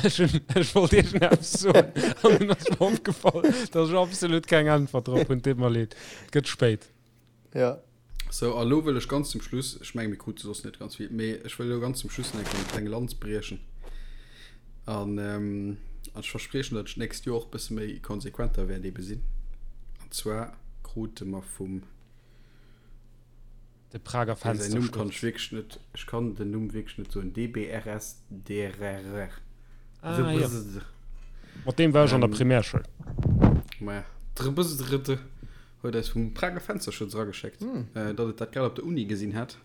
ech hunn, ech wollt iergendeppes soen an dunn ass mer opgefall, datt ech absolut keng Äntwert drop hunn. Deet mer leed, et gëtt spéit. Ja. Sou, a lo wëll ech ganz zum Schluss, ech menge mir krute soss net ganz vill, mee ech wëll elo ganz zum Schluss nach eng Kéier eng kleng Lanz briechen. An an ech verspriechen, datt ech d'nächst Joer och e bësse méi konsequenter wäert ebe sinn. An zwar krute mer vum, De Prager dee säin Numm kann ech Fenstersturz. wierklech net, ech kann den Numm wierklech net soen, DBRSDRR. Ah, jo. Mat deem war ech an der Primärschoul. Maja, drbsdrd. Huet eis vum Prager Fensterschutz erageschéckt, datt et dat grad op der Uni gesinn hätt.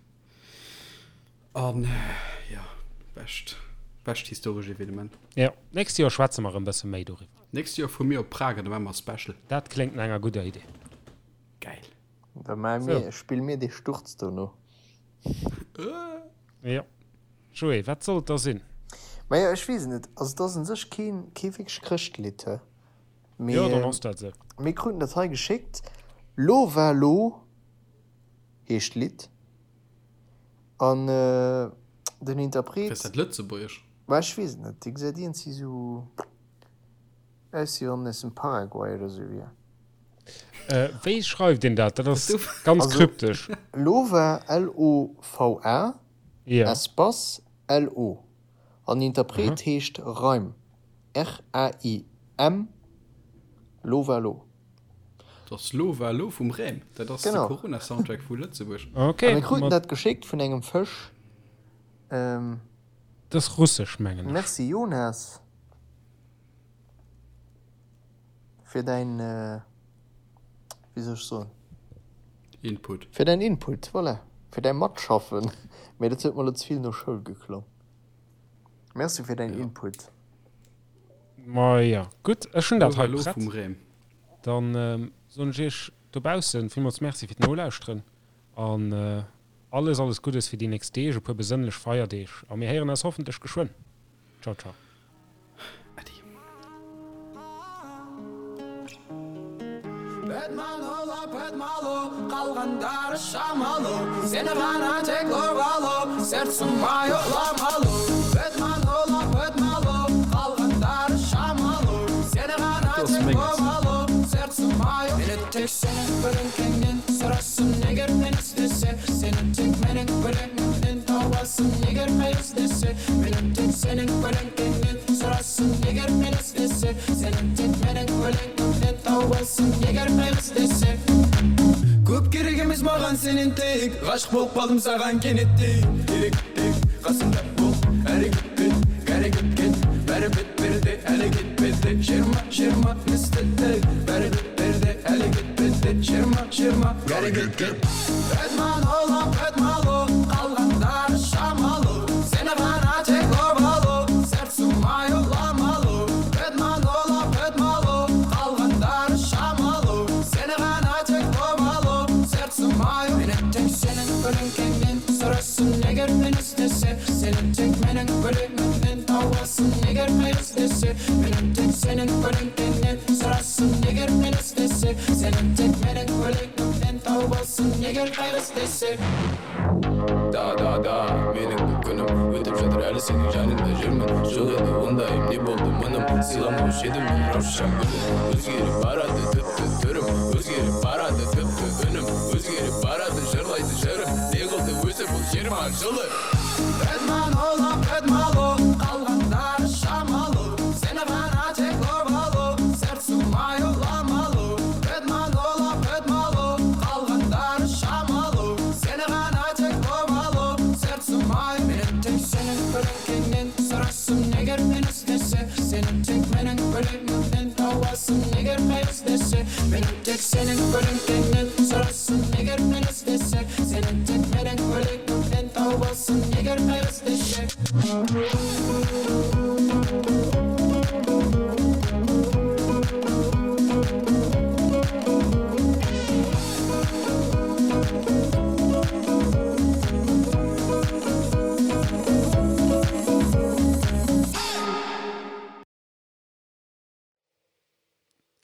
An jo, bescht, bescht historesch Evenement. Jo, nächst Joer schwätze mer erëm bësse méi doriwwer. Nächst Joer fuere mir op Prag an da maache mer e Special. Dat kléngt no enger gudder Idee. Gäil. Da maache mir, spille mir dee Sturz dono. Jo. Joé, wat soll et da sinn? Majo, ech weess et net. Also et ass un sech keen, kee wierklech Chrëschtlidd, he? Mee, Jo, dann ass dat esou. Mir kruten dat hei geschéckt. Lova Lo heescht d'Lidd. An den Interpret. Ass dat Lëtzebuergesch? Ma ech weess et net. Dee gesäit iergendwéi sou aus, wéi wann en aus dem Paraguay oder sou wier. Wéi schreift een dat? Dat ass ganz kryptesch. Lova, L-O-V-A, Ja. Espace, L-O. An den Interpret heescht Raim, R-A-I-M, Lovalo. Dat ass Lovalo vum Raim. Dat ass de Corona-Soundtrack vu Lëtzebuerg. A mir kruten dat geschéckt vun engem Fësch. Dat ass russesch, mengen ech. Merci Jonas fir däin, wéi soll ech soen? Input. Fir däin Input, voilà. Fir däi Matschaffen. Mee dat huet mer elo ze vill no Schoul geklongen. Merci fir däin Input. Ma jo, gutt, ech hunn dat hei prett. Dann soen ech iech dobaussen villmools Merci fir d'Nolauschteren an alles, alles Guddes fir déi nächst Deeg, e puer besënnlech Feierdeeg a mir héieren eis hoffentlech geschwënn. Ciao, ciao. Äddi.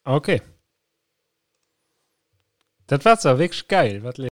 Ok. Dat war zwar wierklech gäil, wat.